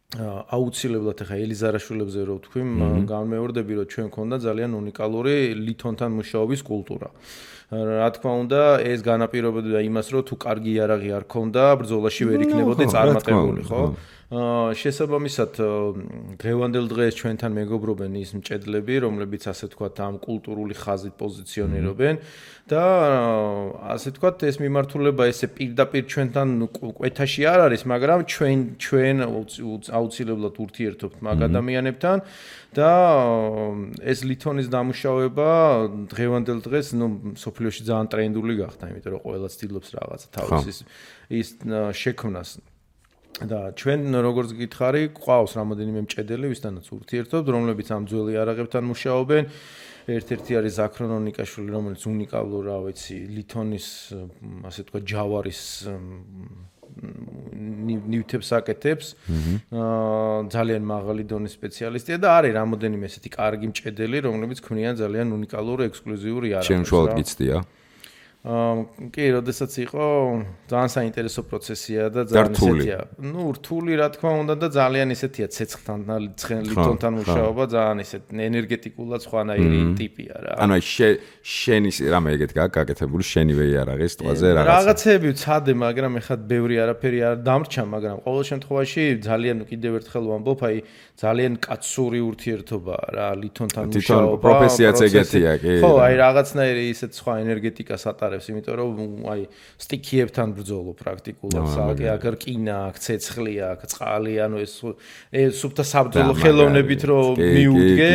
აუცილებლად ახლა ელიზარაშვილებზე რო ვთქვი, განმეორდები, რომ ჩვენ ქონდა ძალიან უნიკალური ლითონთან მუშაობის კულტურა. რა თქმა უნდა, ეს განაპირობებდა იმას, რომ თუ კარგი იარაღი არ ქონდა, ბრძოლაში ვერ იქნებოდი წარმატებული, ხო? შესაბამისად, დღევანდელ დღეს ჩვენთან მეგობრობენ ის მჭედლები, რომლებიც ასე ვთქვათ, ამ კულტურული ხაზით პოზიციონირებენ და ასე ვთქვათ, ეს მიმართულება ესე პირდაპირ ჩვენთან კვეთაში არ არის, მაგრამ ჩვენ აუცილებლად ურთიერთობთ მაგ ადამიანებთან და ეს ლითონის დამუშავება დღევანდელ დღეს, სოფლიოში ძალიან ტრენდული გახდა, იმიტომ რომ ყველა ცდილობს რაღაცა თავის ის შექმნას. და ჩვენ როგორც გითხარი, ყავს რამოდენიმე მჭედელი, ვისთანაც ურთიერთობთ, რომლებიც ამ ძველი იარაღებთან მუშაობენ. ერთ-ერთი არის ზაქრონ ონიკაშვილი, რომელიც უნიკალურ, რა ვიცი, ლითონის, ასე ვთქვათ, ჯავარის ნივთებს აკეთებს. ძალიან მაღალი დონის სპეციალისტია და არის რამოდენიმე ესეთი კარგი მჭედელი, რომლებიც ქმნიან ძალიან უნიკალურ ექსკლუზიურ იარაღებს. ჩემ შუალოდ გიცდია. კი, როდესაც იყო ძალიან საინტერესო პროცესია და ძალიან ესეთია. რთული რა თქმა უნდა და ძალიან ესეთია ცეცხლთან ლითონთან მუშაობა, ძალიან ესეთ ენერგეტიკულად სხვანაირი ტიპია რა. ანუ შენი რამე ეგეთ გაკეთებული შენივე იარაღის ტყვაზე რაღაცები ვცადე, მაგრამ ეხლა ბევრი არაფერი არ დამრჩა, მაგრამ ყოველ შემთხვევაში ძალიან კიდევ ერთხელ ვამბობ, აი ძალიან კაცური ურთიერთობაა რა ლითონთან მუშაობა. პროფესიაც ეგეთია, კი. ხო, აი რაღაცნაირი ისეთ სხვა ენერგეტიკას ატარებს, იმიტომ რომ აი სტიქიებთან ბრძოლო პრაქტიკულად, სააკე აქ რკინა, აქ ცეცხლი, აქ წყალი, ანუ ეს სუფთა საბრძოლო ხელოვნებით რომ მიუდგე,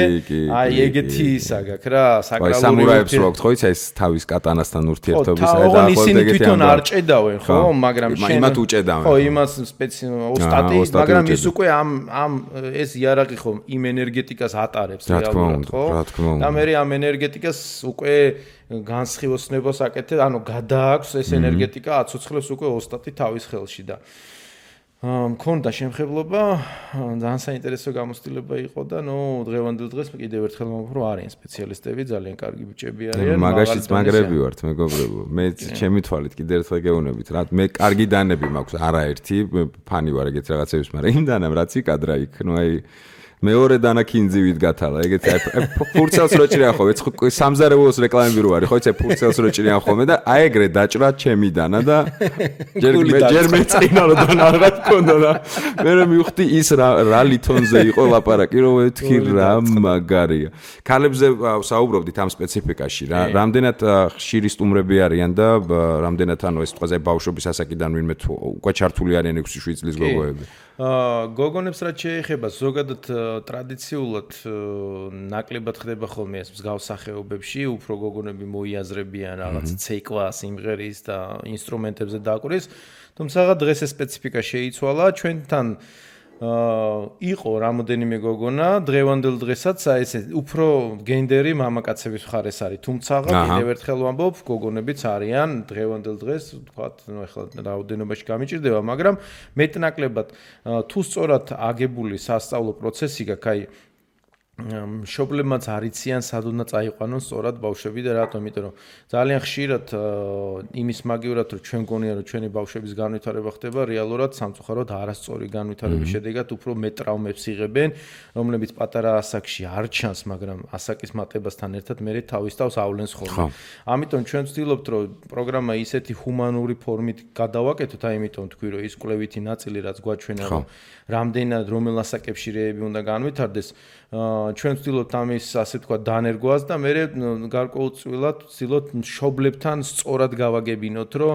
აი ეგეთი ისა გაქვს რა, საკრალური. სამურაებს რო აქვს ხო იცი ეს თავის კატანასთან ურთიერთობის და ხო, ისინი თვითონ არ ჭედავენ, ხო, მაგრამ შენ იმათ უჭედავენ. ხო, იმას ოსტატი, მაგრამ ის უკვე ამ ეს იარაღი ხო იმ ენერგეტიკას ატარებს რეალურად, ხო? და მე ამ ენერგეტიკას უკვე განსხივოსნებას აკეთებ, ანუ გადააქვს ეს ენერგეტიკა, აცოცხლებს უკვე ოსტატი თავის ხელში და მქონდა შემხებლობა, ძალიან საინტერესო გამოცდილება იყო და დღევანდელ დღეს კიდევ ერთხელ მომხრო არიან სპეციალისტები, ძალიან კარგი ბიჭები არიან. მაგაშიც მაგრები ვართ, მეგობრებო. მე ჩემი თვალით კიდევ ერთხელ გეუბნებით, რა მე კარგი დანები მაქვს, არაერთი, ფანი ვარ ეგეთ რაღაცების, მაგრამ იმ დანამ რაც იკადრა იქ, აი მეორე დანა კინძივით გათალა, ეგეთი აი ფურცელს რო ჭრიან ხოლმე, სამზარეულოს რეკლამები რო არის, ხო იცი ფურცელს რო ჭრიან ხოლმე და აი ეგრე დაჭრა ჩემი დანა და ჯერ მეწინა რომ დანა რა თქონდა და მე მივხვდი ის რა ლითონზე იყო ლაპარაკი, რომ ვეთქი რა მაგარია. ქალებზე საუბრობდით ამ სპეციფიკაში რა, რამდენად ხშირი სტუმრები არიან და რამდენად ანუ ეს თქვაზე ბავშვობის ასაკიდან ვინმე უკვე ჩართული არიან 6-7 წლის გოგოები. გოგონებს რაც შეეხება ზოგადად ტრადიციულად ნაკლებად ხდება ხოლმე ეს მსგავს სახეობებში, უფრო გოგონები მოიაზრებიან რაღაც ცეკვა, სიმღერის და ინსტრუმენტებზე დაკვრის, თუმცა დღეს ეს სპეციფიკა შეიცვალა, ჩვენთან იყო რამოდენიმე გოგონა, დღევანდელ დღესაც ესე უფრო გენდერი მამაკაცების მხარეს არის, თუმცა კიდევ ერთხელ ვამბობ, გოგონებიც არიან დღევანდელ დღეს, ვთქვათ, ეხლა რაოდენობაში გამიჭირდება, მაგრამ მეტნაკლებად თუ სწორად აგებული სასწავლო პროცესი გაქვს, აი მშობლებმაც არიციან სად უნდა წაიყვანონ სწორად ბავშვები და რატომ? იმიტომ რომ ძალიან ხშირად იმის მაგივრად რომ ჩვენ გონია რომ ჩვენი ბავშვების განვითარება ხდება რეალურად სამწუხაროდ არასწორი განვითარების შედეგად უფრო მეტ ტრავმებს იღებენ, რომლებიც პატარა ასაკში არ ჩანს, მაგრამ ასაკის მატებასთან ერთად მე თავის თავს ავლენს ხოლმე. ამიტომ ჩვენ ვცდილობთ რომ პროგრამა ისეთი ჰუმანური ფორმით გადავაკეთოთ, აი იმიტომ თქვი რომ ის კვლევითი ნაწილი რაც გვაჩვენა რომ რამდენად რომელ ასაკებში რეები უნდა განვითარდეს, ჩვენ ვცდილობთ ამის ასე თქვა დანერგვას და მე გარკვეულწილად ვცდილობთ მშობლებთან სწორად გავაგებინოთ, რომ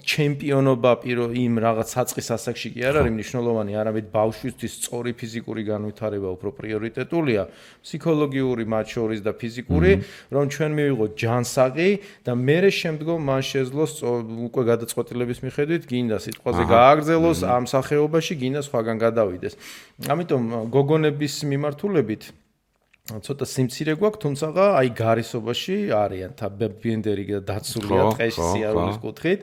ჩემპიონობა იმ რაღაც საწყის ასაკში კი არ არის მნიშვნელოვანი, არამედ ბავშვისთვის სწორი ფიზიკური განვითარება უფრო პრიორიტეტულია, ფსიქოლოგიური მათ შორის და ფიზიკური, რომ ჩვენ მივიღოთ ჯანსაღი და მე შემდგომ მან შეძლოს უკვე გადაწყვეტილების მიხედვით გინდა სიტყვაზე გააგრძელოს ამ სახეობაში, გინდა სხვაგან გადავიდეს. ამიტომ გოგონების მიმართულებით ცოტა სიმცირე გვაქვს, თუმცა აი გარისობაში არიან ბენდერი და დაცულია ტყეში სიარულის კუთხით.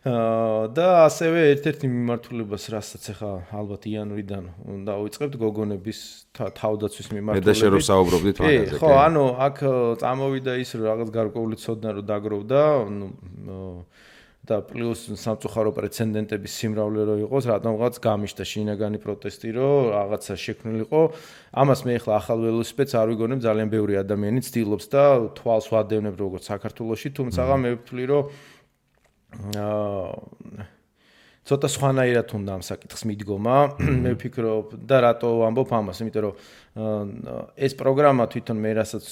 და ასევე ერთ-ერთი მიმართულებას, რასაც ახლა ალბათ იანვრიდან დავიწყებთ გოგონების თავდაცვის მიმართულებით. და შენ რო საუბრობდით მაგაზე. ხო, ანუ აქ წამოვიდა ის რომ რაღაც გარკვეული ცოდნა რო დაგროვდა, და პლუს სამწუხარო პრეცედენტების სიმრავლე რო იყოს, რატომღაც გამიშთა შინაგანი პროტესტი, რომ რაღაცა შექმნილიყო. ამას მე ახლა ახალ ველოსიპედს არ ვიგონებ, ძალიან ბევრი ადამიანი ცდილობს და თვალს ვადევნებ როგორც საქართველოში, თუმცა მე ვფლი რომ ცოტა სხვანაირად უნდა ამ საკითხს მიდგომა. მე ვფიქრობ და რატო ვამბობ ამას, იმიტომ რომ ეს პროგრამა თვითონ მე რასაც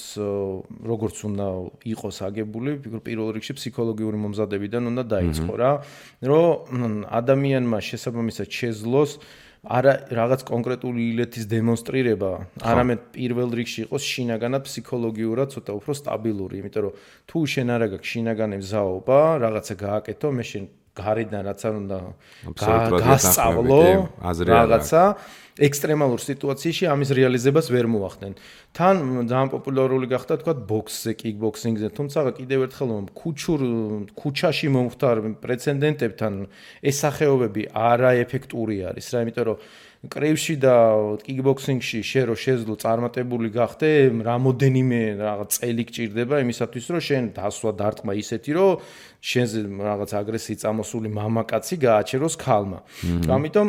როგორც უნდა იყოს აგებული, ვფიქრობ პირველ რიგში ფსიქოლოგიური მომზადებიდან უნდა დაიწყო რა, რომ ადამიანმა შესაბამისად შეძლოს არა რაღაც კონკრეტული ილეთის დემონსტრირება, არამედ პირველ რიგში იყოს შინაგანად ფსიქოლოგიურად ცოტა უფრო სტაბილური, იმიტომ რომ თუ შენ არ აქვს შინაგანი მზაობა, რაღაცა გააკეთო, მე შენ გარედან რაც არ უნდა გასწავლო რაღაცა ექსტრემალურ სიტუაციაში ამის რეალიზებას ვერ მოახდენ. თან ძალიან პოპულარული გახდა თქვა ბოქსზე, კიკბოქსინგზე, თუმცა კიდევ ერთხელ ქუჩაში მომხდარ პრეცედენტებთან ეს სახეობები არაეფექტური არის რა, იმიტომ რომ კრივში და კიკბოქსინგში შენ რო შეძლო წარმატებული გახდე, რამოდენიმე რაღაც წელი გჭირდება იმისათვის, რომ შენ დასვა დარტყმა ისეთი, რომ შენზე რაღაც აგრესიით წამოსული მამაკაცი გააჩეროს ქალმა. ამიტომ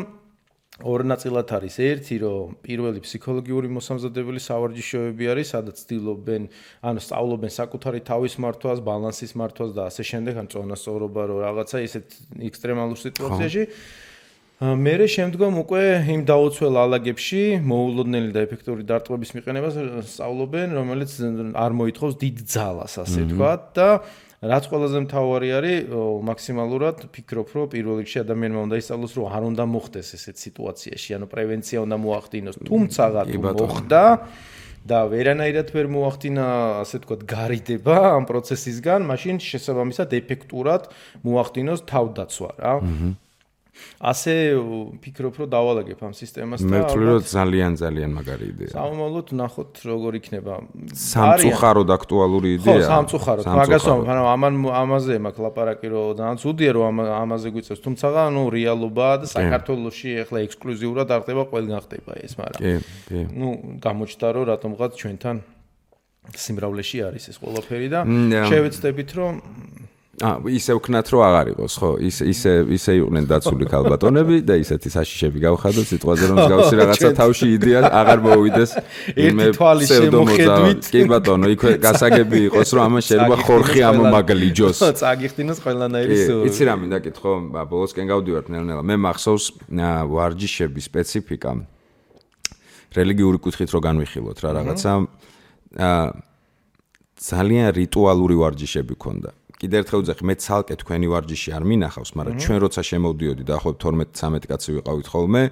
ორ ნაწილად არის. ერთი, რომ პირველი ფსიქოლოგიური მოსამზადებელი სავარჯიშოები არის, სადაც ცდილობენ, ანუ სწავლობენ საკუთარი თავის მართვას, ბალანსის მართვას და ასე შემდეგ, ან წონასწორობა, რომ რაღაცა ისეთ ექსტრემალურ სიტუაციაში მერე შემდგომ უკვე იმ დაუცველ ალაგებში მოულოდნელი და ეფექტური დარტყმების მიყენებას სწავლობენ, რომელიც არ მოითხოვს დიდ ძალას, ასე ვთქვათ და რაც ყველაზე მთავარი არის, მაქსიმალურად ფიქრობ, რომ პირველ რიგში ადამიანმა უნდა ისწავლოს, რომ არ უნდა მოხდეს ესეთ სიტუაციაში, ანუ პრევენცია უნდა მოახდინოს, თუმცა თუ მოხდა და ვერანაირად ვერ მოახდინა, ასე ვთქვათ, გარიდება ამ პროცესისგან, მაშინ შესაბამისად ეფექტურად მოახდინოს თავდაცვა რა. ასე ფიქრობ, რომ დავალაგებ ამ სისტემას და მე ვთვლი, რომ ძალიან მაგარი იდეა. სამომავლოდ ნახოთ როგორ იქნება. სამწუხაროდ აქტუალური იდეაა. ხო, სამწუხაროდ. მაგას ვამბობ, ამაზე მაქვს ლაპარაკი, რომ ძალიან ცუდია, რომ ამაზე გვიწევს, თუმცა ნუ რეალობაა და საქართველოში ახლა ექსკლუზიურად არ ხდება, ყველგან ხდება ეს, მაგრამ ნუ გამოჩნდა, რომ რატომღაც ჩვენთან სიმრავლეში არის ეს ყველაფერი და შევეცდებით, რომ ისე ვქნათ რომ აღარ იყოს, ხო? ისე იყვნენ დაცული ქალბატონები და ისეთი საშიშები გავხადოთ სიტყვაზე რომ მსგავსი რაღაცა თავში იდეა აღარ მოვიდეს ერთი თვალი შემოხედვით. კი ბატონო, იქვე გასაგები იყოს რომ ამან შეიძლება ხორხი ამომაგლიჯოს. წაგიხდინოს ყველანაირი სულ. იცი რა მინდა კითხო, ბოლოსკენ გავდივართ ნელ-ნელა. მე მახსოვს ვარჯიშების სპეციფიკა რელიგიური კუთხით რო განვიხილოთ რა რაღაცა ძალიან რიტუალური ვარჯიშები ქონდა. კიდე ერთხელ ვძახი, მე ცალკე თქვენი ვარჯიში არ მინახავს, მაგრამ ჩვენ როცა შემოვდიოდი და ახლა 12-13 კაცი ვიყავით ხოლმე,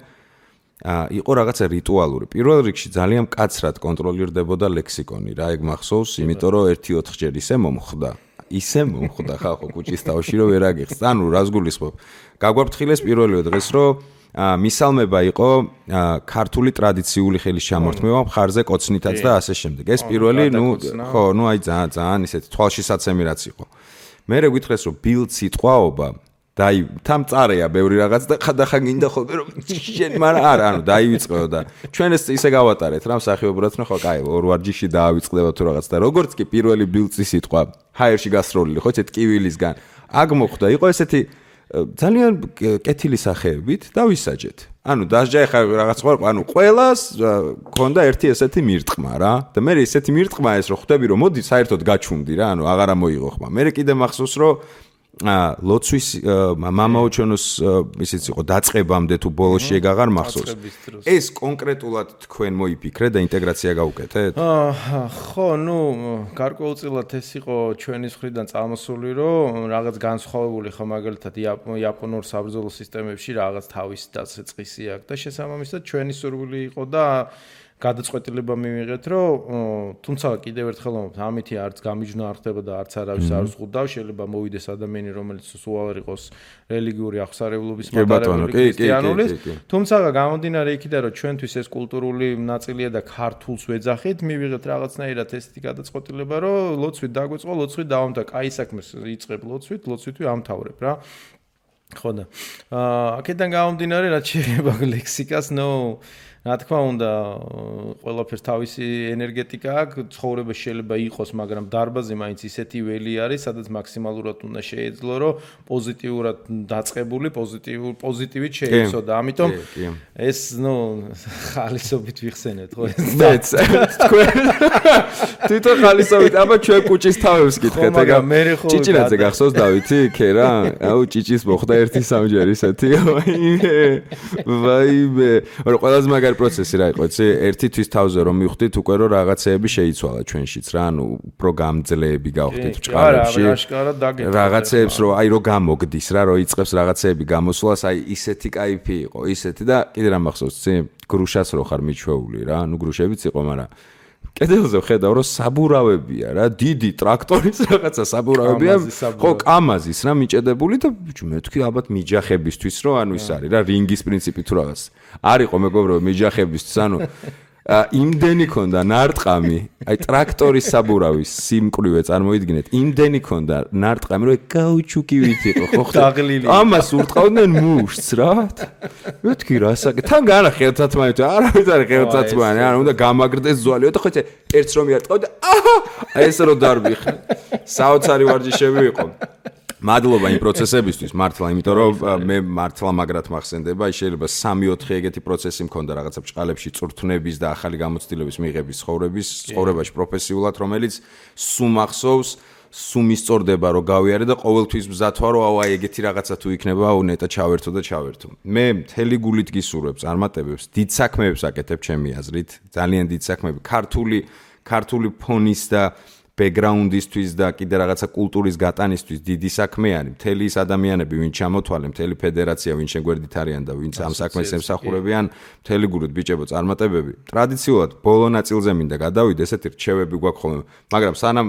იყო რაღაცა რიტუალური. პირველ რიგში ძალიან მკაცრად კონტროლირდებოდა ლექსიკონი, რა ეგ მახსოვს, იმიტომ რომ 1-4 ისე მომხდა ხალხო კუჩის თავში რომ ვერ აგიხსნა. ანუ რას გულისხმობ? გაგვაფრთხილეს პირველივე დღეს რომ მისალმება იყო ქართული ტრადიციული ხელის ჩამორთმევა მხარზე კოცნითაც და ასე შემდეგ. ეს პირველი, აი ძალიან ისეთი თვალშისაცემი რაც იყო. მერე გითხრეს რომ ბილდ სიტყვაობა თან წარეა ბევრი რაღაც და ხადახან გინდა ხოლმე რომ შენ მაგრამ არა, ანუ დაივიწყეო და ჩვენ ეს ისე გავატარეთ რა მსახიობურად, ხო, კაი, ორ ვარჯიში დაავიწყდება თუ რაღაც და როგორც კი პირველი ბილდსი სიტყვა ჰაერში გასროლილი, ხო, ესეთ კივილისგან აქ მოხდა, იყო ესეთი ძალიან კეთილი სახეებით დავისაჯეთ. ანუ დასჯა ხა რაღაც ყო, ანუ ყველას ქონდა ერთი ესეთი მირტყმა რა. და მე ესეთი მირტყმა ეს რომ ხვდები რომ მოდი საერთოდ გაჩუნდი რა, ანუ აღარა მოიღო ხმა. მე კიდე მახსოვს რომ ლოცვის მამაოჩონოს ისიც იყო დაწყებამდე თუ ბოლოში ეგ აღარ მახსოვს. ეს კონკრეტულად თქვენ მოიფიქრეთ და ინტეგრაცია გაუკეთეთ? ხო, ნუ გარკვეულწილად ეს იყო ჩვენი მხრიდან წამოსული, რომ რაღაც განსხვავებული ხო მაგალითად იაპონურ საბრძოლო სისტემებში რაღაც თავის დაწესწისი აქვს და შესაბამისად ჩვენი სურვილი იყო და გადაწყვეტილება მივიღეთ, რომ თუმცა კიდევ ერთხელ ვამბობ, ამითი არც გამიჯნა არ ხდება და არც არავის არ ზღუდავ, შეიძლება მოვიდეს ადამიანი, რომელიც სულ არ იყოს რელიგიური აღსარებლობის მატარებელი ქრისტიანული, თუმცა გამომდინარე იქიდან, რომ ჩვენთვის ეს კულტურული ნაწილია და ქართულს ვეძახით, მივიღეთ რაღაცნაირად ესეთი გადაწყვეტილება, რომ ლოცვით დაგვეწყო, ლოცვით დავამთავრებ, კაი საქმეს იწყებ ლოცვით ვამთავრებ რა. ხო და აქედან გამომდინარე რაც შეიძლება ლექსიკას რა თქმა უნდა ყველაფერს თავისი ენერგეტიკა აქვს ცხოვრება შეიძლება იყოს მაგრამ დარბაზი მაინც ისეთი ველი არის სადაც მაქსიმალურად უნდა შეეძლო რომ პოზიტიურად დაწყებული პოზიტივით შეიცო და ამიტომ ეს ხალისობით ვიხსენეთ ხო მეც თქვენ თვითონ ხალისობით აბა ჩვენ კუჭის თავებს გითხეთ ეგა ჭიჭინაძე გახსოვს დავითი ქერა აუ ჭიჭის მოხდა 1-3 ისეთი ვაიმე რომ ყველაზე პროცესი რა იყო, იცი, ერთი თვის თავზე რომ მივხვდით უკვე რომ რაღაცეები შეიცვალა ჩვენშიც რა, ანუ უფრო გამძლეები გავხდით ჭყარებში. რაღაცეებს რომ აი რომ გამოგდის რა, რომ იწყებს რაღაცეები გამოსვლას, აი ისეთი кайფი იყო, ისეთი და კიდე რა მახსოვს, იცი, გრუშას რო ხარ მიჩვეული რა, ანუ გრუშებიც იყო, მაგრამ კედელზე ხედავ რომ საბურავებია რა, დიდი ტრაქტორის რაღაცა საბურავებია, ხო, კამაზის რა მიჭედებული და მე თქვი ალბათ მიჯახებისთვის რომ ანუ ის არის რა, რინგის პრინციპი თუ რაღაც. არისო მეგობრებო მიჯახებისთვის, ანუ იმდენი ქონდა ნარტყამი, აი ტრაქტორის საბურავის სიმკვრივე წარმოიდგინეთ, იმდენი ქონდა ნარტყამი, რომ გაუჩუკივით იყო, ხო ხდა? ამას ურტყავდნენ მუშს რა. მეთქი რა საკეთე? თან განა ხელთათმანი, არავის არ ხელთათმანი, ანუ უნდა გამაგრდეს ზვალი, და ხო იცი, ერთს რომ იარტყავდა, აჰა, აი ეს რო დარბიხე. საოცარი ვარჯიშები იყო. მადლობა იმ პროცესებისთვის მართლა, იმიტომ რომ მე მართლა მაგრად მახსენდება, შეიძლება 3-4 ეგეთი პროცესი მქონდა რაღაცა ბჭყალებში წვრთნების და ახალი გამოცდილების მიღების ცხოვრებაში პროფესიულად, რომელიც სულ მახსოვს, სულ მისწორდება რომ გავიარე და ყოველთვის მზად ვარ რომ აი ეგეთი რაღაცა თუ იქნება, აუ ნეტა ჩავერთო და ჩავერთო. მე მთელი გულით გისურვებ წარმატებებს, დიდ საქმეებს აკეთებ ჩემი აზრით, ძალიან დიდ საქმეები, ქართული ფონის და ბექგრაუნდისთვის და კიდე რაღაცა კულტურის გატანისთვის დიდი საქმე არის. მთელი ის ადამიანები, ვინც ჩამოთვალე, მთელი ფედერაცია, ვინც შეგვერდით არიან და ვინც ამ საქმეს ემსახურებიან, მთელი გულით ბიჭებო წარმატებები. ტრადიციულად ბოლო ნაწილზე მინდა გადავიდე, ესეთი რჩევები გვაქვს ხოლმე. მაგრამ სანამ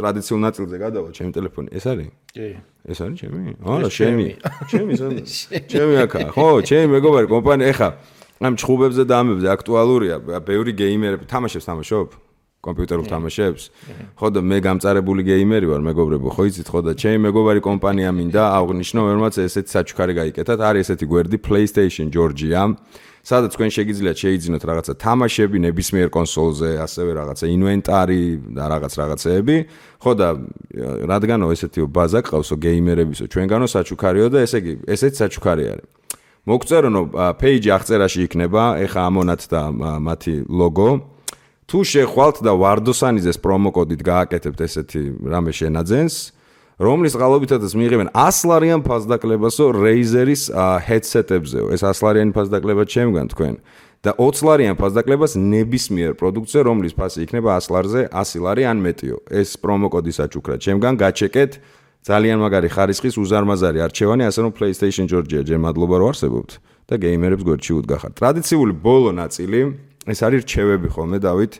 ტრადიციულ ნაწილზე გადავალ, ჩემი ტელეფონი ეს არის? კი. ეს არის ჩემი? არა, ჩემი. ჩემი აქაა. ხო, ჩემი მეგობარი კომპანია ეხა ამ ჭხუბებზე და ამებზე აქტუალურია. ბევრი გეიმერები თამაშობ? კომპიუტერულ თამაშებს. ხო და მე გამწარებული გეიმერი ვარ, მეგობრებო, ხო იცით ხო და ჩემი მეგობარი კომპანია მინდა აღვნიშნო, რომელმაც ესეთი საჩუქარი გაიკეთათ. არის ესეთი გვერდი PlayStation Georgia, სადაც თქვენ შეგიძლიათ შეიძინოთ რაღაცა თამაშები ნებისმიერ კონსოლზე, ასევე რაღაცა ინვენტარი და რაღაცეები. ხო და რადგანო ესეთი ბაზა ყავსო გეიმერებისო, ჩვენგანო საჩუქარიო და ესე იგი, ესეთი საჩუქარი არის. მოგწერონო page აღწერაში იქნება, ეხა ამონათ და მათი ლოგო. თუ შეხვალთ და ვარდოსანიძეს პრომოკოდით გააკეთებთ ესეთი რამე შენაძენს, რომლის წყალობითაც მიიღებენ 100 ლარიან ფასდაკლებასო Razer-ის headset-ებზეო. ეს 100 ლარიანი ფასდაკლება ჩემგან თქვენ და 20 ლარიან ფასდაკლებას ნებისმიერ პროდუქტზე, რომლის ფასი იქნება 100 ლარზე 100 ლარი ან მეტიო. ეს პრომოკოდი საჩუქრა ჩემგან გაჩეკეთ. ძალიან მაგარი ხარისხის უზარმაზარი არჩევანი, ასე რომ PlayStation Georgia ჯერ მადლობა რომ არსებობთ და გეიმერებს გვერდში უდგახართ. ტრადიციული ბოლო ნაწილი ეს არის რჩევები ხოლმე დავით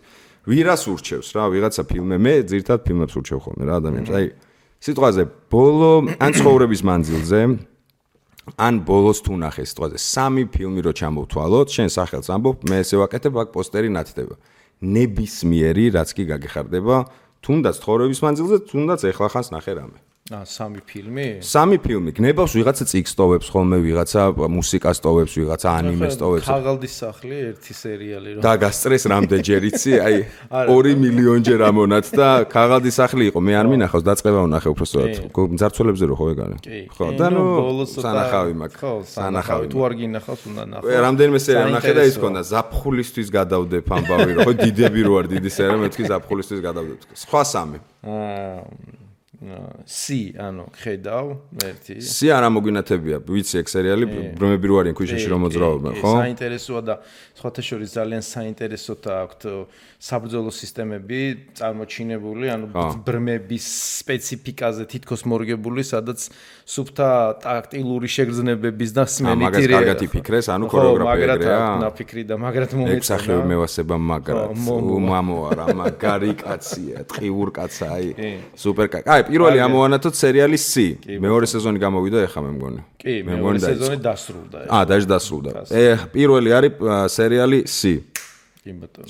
ვირას ურჩევს რა ვიღაცა ფილმე მე ძირთად ფილმებს ურჩევ ხოლმე რა ადამიანს აი სიტყვაზე ბოლო ან ცხოვრების მანძილზე ან ბოლოს თუ ნახე სიტყვაზე 3 ფილმი რო ჩამოვთვალოთ შენ სახელს ამბობ მე ესე ვაკეთებ აქ პოსტერი ნათდება ნებისმიერი რაც კი გაგეხარდება თუნდაც ცხოვრების მანძილზე თუნდაც ეხლა ხანს ნახე რამე 3 ფილმი? 3 ფილმი. გნებავს ვიღაცა წიგს ტოვებს ხოლმე, ვიღაცა მუსიკას ტოვებს, ვიღაცა ანიმეს ტოვებს. ქაღალდის სახლი ერთი სერიალი რო. და გასწრეს რამდენჯერ იცი? აი 2 მილიონჯერ ამონათ და ქაღალდის სახლი იყო. მე არ მინახავს, დაწყება ვნახე უბრალოდ. მძარცველებზე რო ხო ეგარი? ხო, და ნუ სანახავი მაქვს. ხო, სანახავი. თუ არ გინახავს, უნდა ნახო. რამდენიმე სერია ვნახე და ის ქონდა ზაფხულისთვის გადავდებ ამბავი რო. ხო, დიდები რო არ დიდი სერია, მე თქვი ზაფხულისთვის გადავდებ. სხვა 3. C ანუ ხედავ ერთი C არ ამოგვინათებია ვიცი ეგ სერიალი ბრმები რო არიან ქვიშაში რომ მოძრაობენ ხო საინტერესოა და სხვათა შორის ძალიან საინტერესოა აქვთ საბრძოლო სისტემები წარმოჩინებული ანუ ბრმების სპეციფიკაზე თითქოს მორგებული სადაც სუფთა ტაქტილური შეგრძნებების და სმენიტირია მაგას კარგად იფიქრეს ანუ ქორეოგრაფია ეგრეა ნაფიქრი და მაგრამ მომეწონა ეგ სახელი მევასება მაგრად უმამო არა მაგარი კაცია ტყიურ კაცა აი სუპერ კაცი აი პირველი ამოვანათოთ სერიალი C. მეორე სეზონი გამოვიდა ეხა მე მგონი. კი, მეორე სეზონი დასრულდა. დაჟე დასრულდა. პირველი არის სერიალი C. კი ბატონო.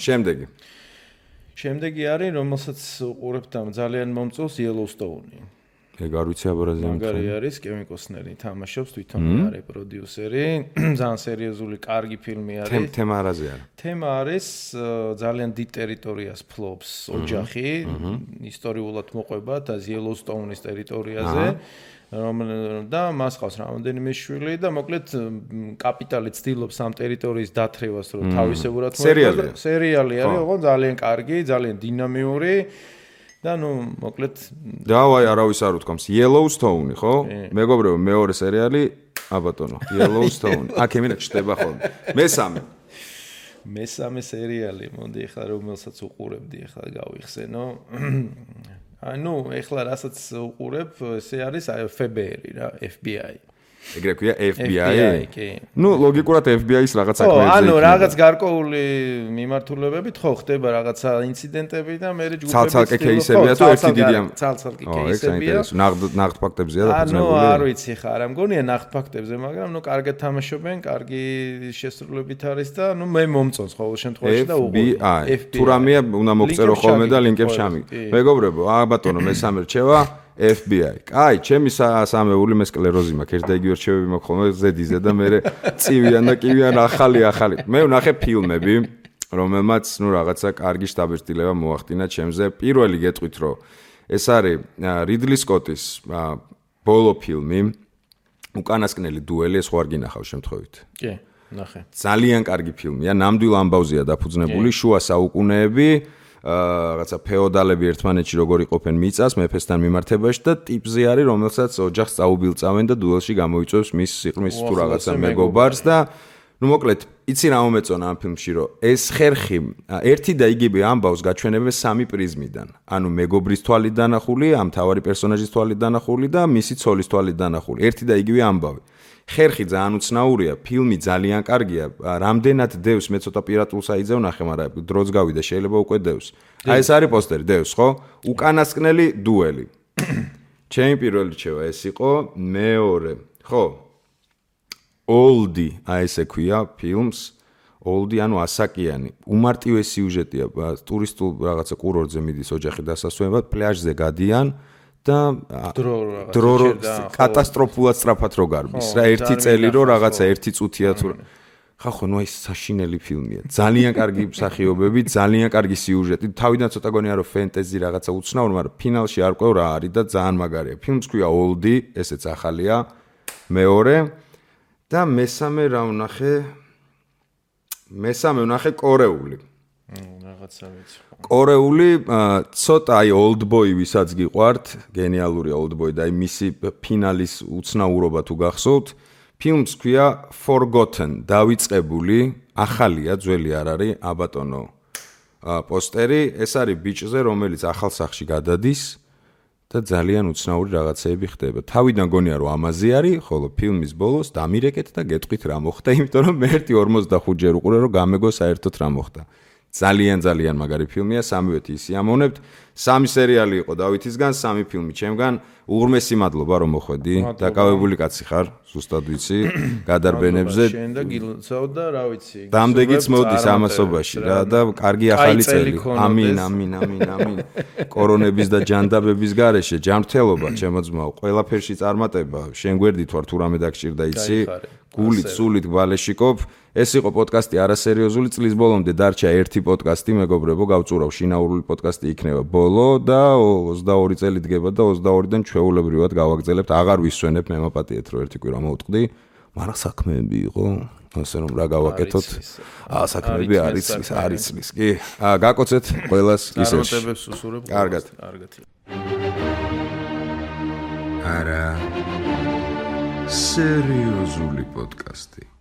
შემდეგი არის, რომელსაც უყურებთ ამ ძალიან მომწონს Yellowstone. ეგ არ ვიცი აბარაზე მაგარი არის კევინ კოსტნერი თამაშობს თვითონი არის პროდიუსერი ძალიან სერიოზული კარგი ფილმი არის თემა არაზე არის თემა არის ძალიან დიდ ტერიტორიას ფლობს ოჯახი ისტორიულად მოყვება და იელოუსტოუნის ტერიტორიაზე და მას ყავს რამოდენიმე შვილი და მოკლედ კაპიტალი ცდილობს ამ ტერიტორიის დათრევას რომ თავისებურად მოეწყოს სერიალი არის ოღონდ ძალიან კარგი ძალიან დინამიური და ნუ მოკლედ დავაი არავის არ უთქვამს Yellowstone ხო? მეგობრებო მეორე სერიალი აბატონო Yellowstone აქ ემინა ჩდება ხოლმე მესამე სერიალი მოდი ახლა რომელსაც უყურებდი ახლა გავიხსენო ანუ ახლა რასაც უყურებ ესე არის FBI რა FBI ეგრე ქვია FBI კი ნუ ლოგიკურად FBI-ს რაღაც საქმეებზე ანუ რაღაც გარკვეული მიმართულებებით ხო ხდება რაღაცა ინციდენტები და მე ჯგუფები ცალ-ცალკე კეისებია თუ ერთი დიდი ამ ცალ-ცალკე კეისებია ნაღდ ფაქტებზეა დაფუძნებული ანუ არ ვიცი ხა არ მგონია ნაღდ ფაქტებზე მაგრამ ნუ კარგად თამაშობენ კარგი შესრულებით არის და ნუ მე მომწონს ყოველ შემთხვევაში და FBI თუ რამეა უნდა მოგწერო ხოლმე და ლინკებს ჩამიგდო მეგობრებო ბატონო მესამე რჩევა FBI. კაი, ჩემი სამეული მე სკლეროზი მაქვს. ერთ და იგივე რჩევები მაქვს ხოლმე ზედიზე და მე წივიან და კივიან ახალი. მე ვნახე ფილმები, რომელმაც ნუ რაღაცა კარგი შტაბ-სტილება მოახდინა ჩემზე. პირველი გეტყვით, რომ ეს არის რიდლი სკოტის ბოლო ფილმი, უკანასკნელი დუელი, ეს ხო არ გინახავ შემთხვევით. კი, ნახე. ძალიან კარგი ფილმია, ნამდვილ ამბავზეა დაფუძნებული, შუა საუკუნეები. რაღაცა ფეოდალები ერთმანეთში როგორ იყოფენ მიწას მეფესთან მიმართებაში და ტიპზე არის რომელსაც ოჯახს წაუბილწავენ და დუელში გამოიწვევს მის სიყრმის თუ რაღაცა მეგობარს და ნუ მოკლედ იცი რა მომეწონა ამ ფილმში რომ ეს ხერხი ერთი და იგივე ამბავს გაჩვენებენ სამი პრიზმიდან ანუ მეგობრის თვალით დანახული ამ თავარი პერსონაჟის თვალით დანახული და მისი ცოლის თვალით დანახული ერთი და იგივე ამბავი ხერხი ძალიან უცნაურია, ფილმი ძალიან კარგია. რამდენად დევს მე ცოტა პირატულს აიძევ ნახე, მაგრამ დროც გავიდა, შეიძლება უკვე დევს. აი ეს არის პოსტერი, დევს, ხო? უკანასკნელი დუელი. ჩემი პირველი რჩევა ეს იყო, მეორე, ხო? Oldie, აი ესე ქვია ფილმს. Oldie, ანუ ასაკიანი. უმარტივესი სიუჟეტია, ტურისტულ რაღაცა კურორტზე მიდის ოჯახი დასასვენებლად, პლაჟზე გადიან. და დრო კატასტროფულად სწრაფად რო გარბის რა ერთი წელი რო რაღაცა ერთი წუთია თუ ხახო ნუ ეს საშინელი ფილმია ძალიან კარგი მსახიობები ძალიან კარგი სიუჟეტი თავიდან ცოტა გონია რომ ფენტეზი რაღაცა უცნაური მაგრამ ფინალში არ ყვევ რა არის და ძალიან მაგარია ფილმს ქვია Oldie ესეც ახალია მეორე და მესამე რა ვნახე კორეული კორეული ცოტა აი Oldboy ვისაც გიყვართ, გენიალურია Oldboy და აი მისი ფინალის უცნაურობა თუ გახსოვთ, ფილმს ქვია Forgotten, დავიწყებული, ახალია, ძველი არ არის, აბატონო. პოსტერი, ეს არის ბიჭზე, რომელიც ახალ სახლში გადადის და ძალიან უცნაური რაღაცეები ხდება. თავიდან გონია რომ ამაზე არის, ხოლო ფილმის ბოლოს დამირეკეთ და გეტყვით რა მოხდა, იმიტომ რომ მე 45 ჯერ უყურე რომ გამეგო საერთოდ რა მოხდა. ძალიან მაგარი ფილმია, სამივე ისიამოვნებთ. სამი სერიალი იყო დავითისგან, სამი ფილმი ჩემგან. უღრმესი მადლობა რომ მოხვედი. დაკავებული კაცი ხარ, ზუსტად ვიცი, გადარბენებზე. შენ და გილოცავ და რა ვიცი. დამდეგიც მოდის ამასობაში რა და კარგი ახალი წელი. ამინ. კორონების და ჯანდაბების გარეშე ჯანმრთელობა ჩემოძმაო, ყველაფერში წარმატება. შენ გვერდით ვარ თუ რამე დაგჭირდა იცი? გულით, სულით გვალეშიკობ. ეს იყო პოდკასტი არასერიოზული წლის ბოლომდე დარჩა ერთი პოდკასტი მეგობრებო გავწურავ შინაურული პოდკასტი იქნება ბოლო და 22 წელი დგება და 22-დან ჩვეულებრივად გავაგრძელებთ აღარ ვისვენებ მე მაპატიეთ რომ ერთი კვირა მოვტყდი მაგრამ საქმეები იყო ასე რომ რა გავაკეთოთ საქმეები არის კი გაკოცეთ ყველას ისევ წარმატებებს უსურებ კარგად არა სერიოზული პოდკასტი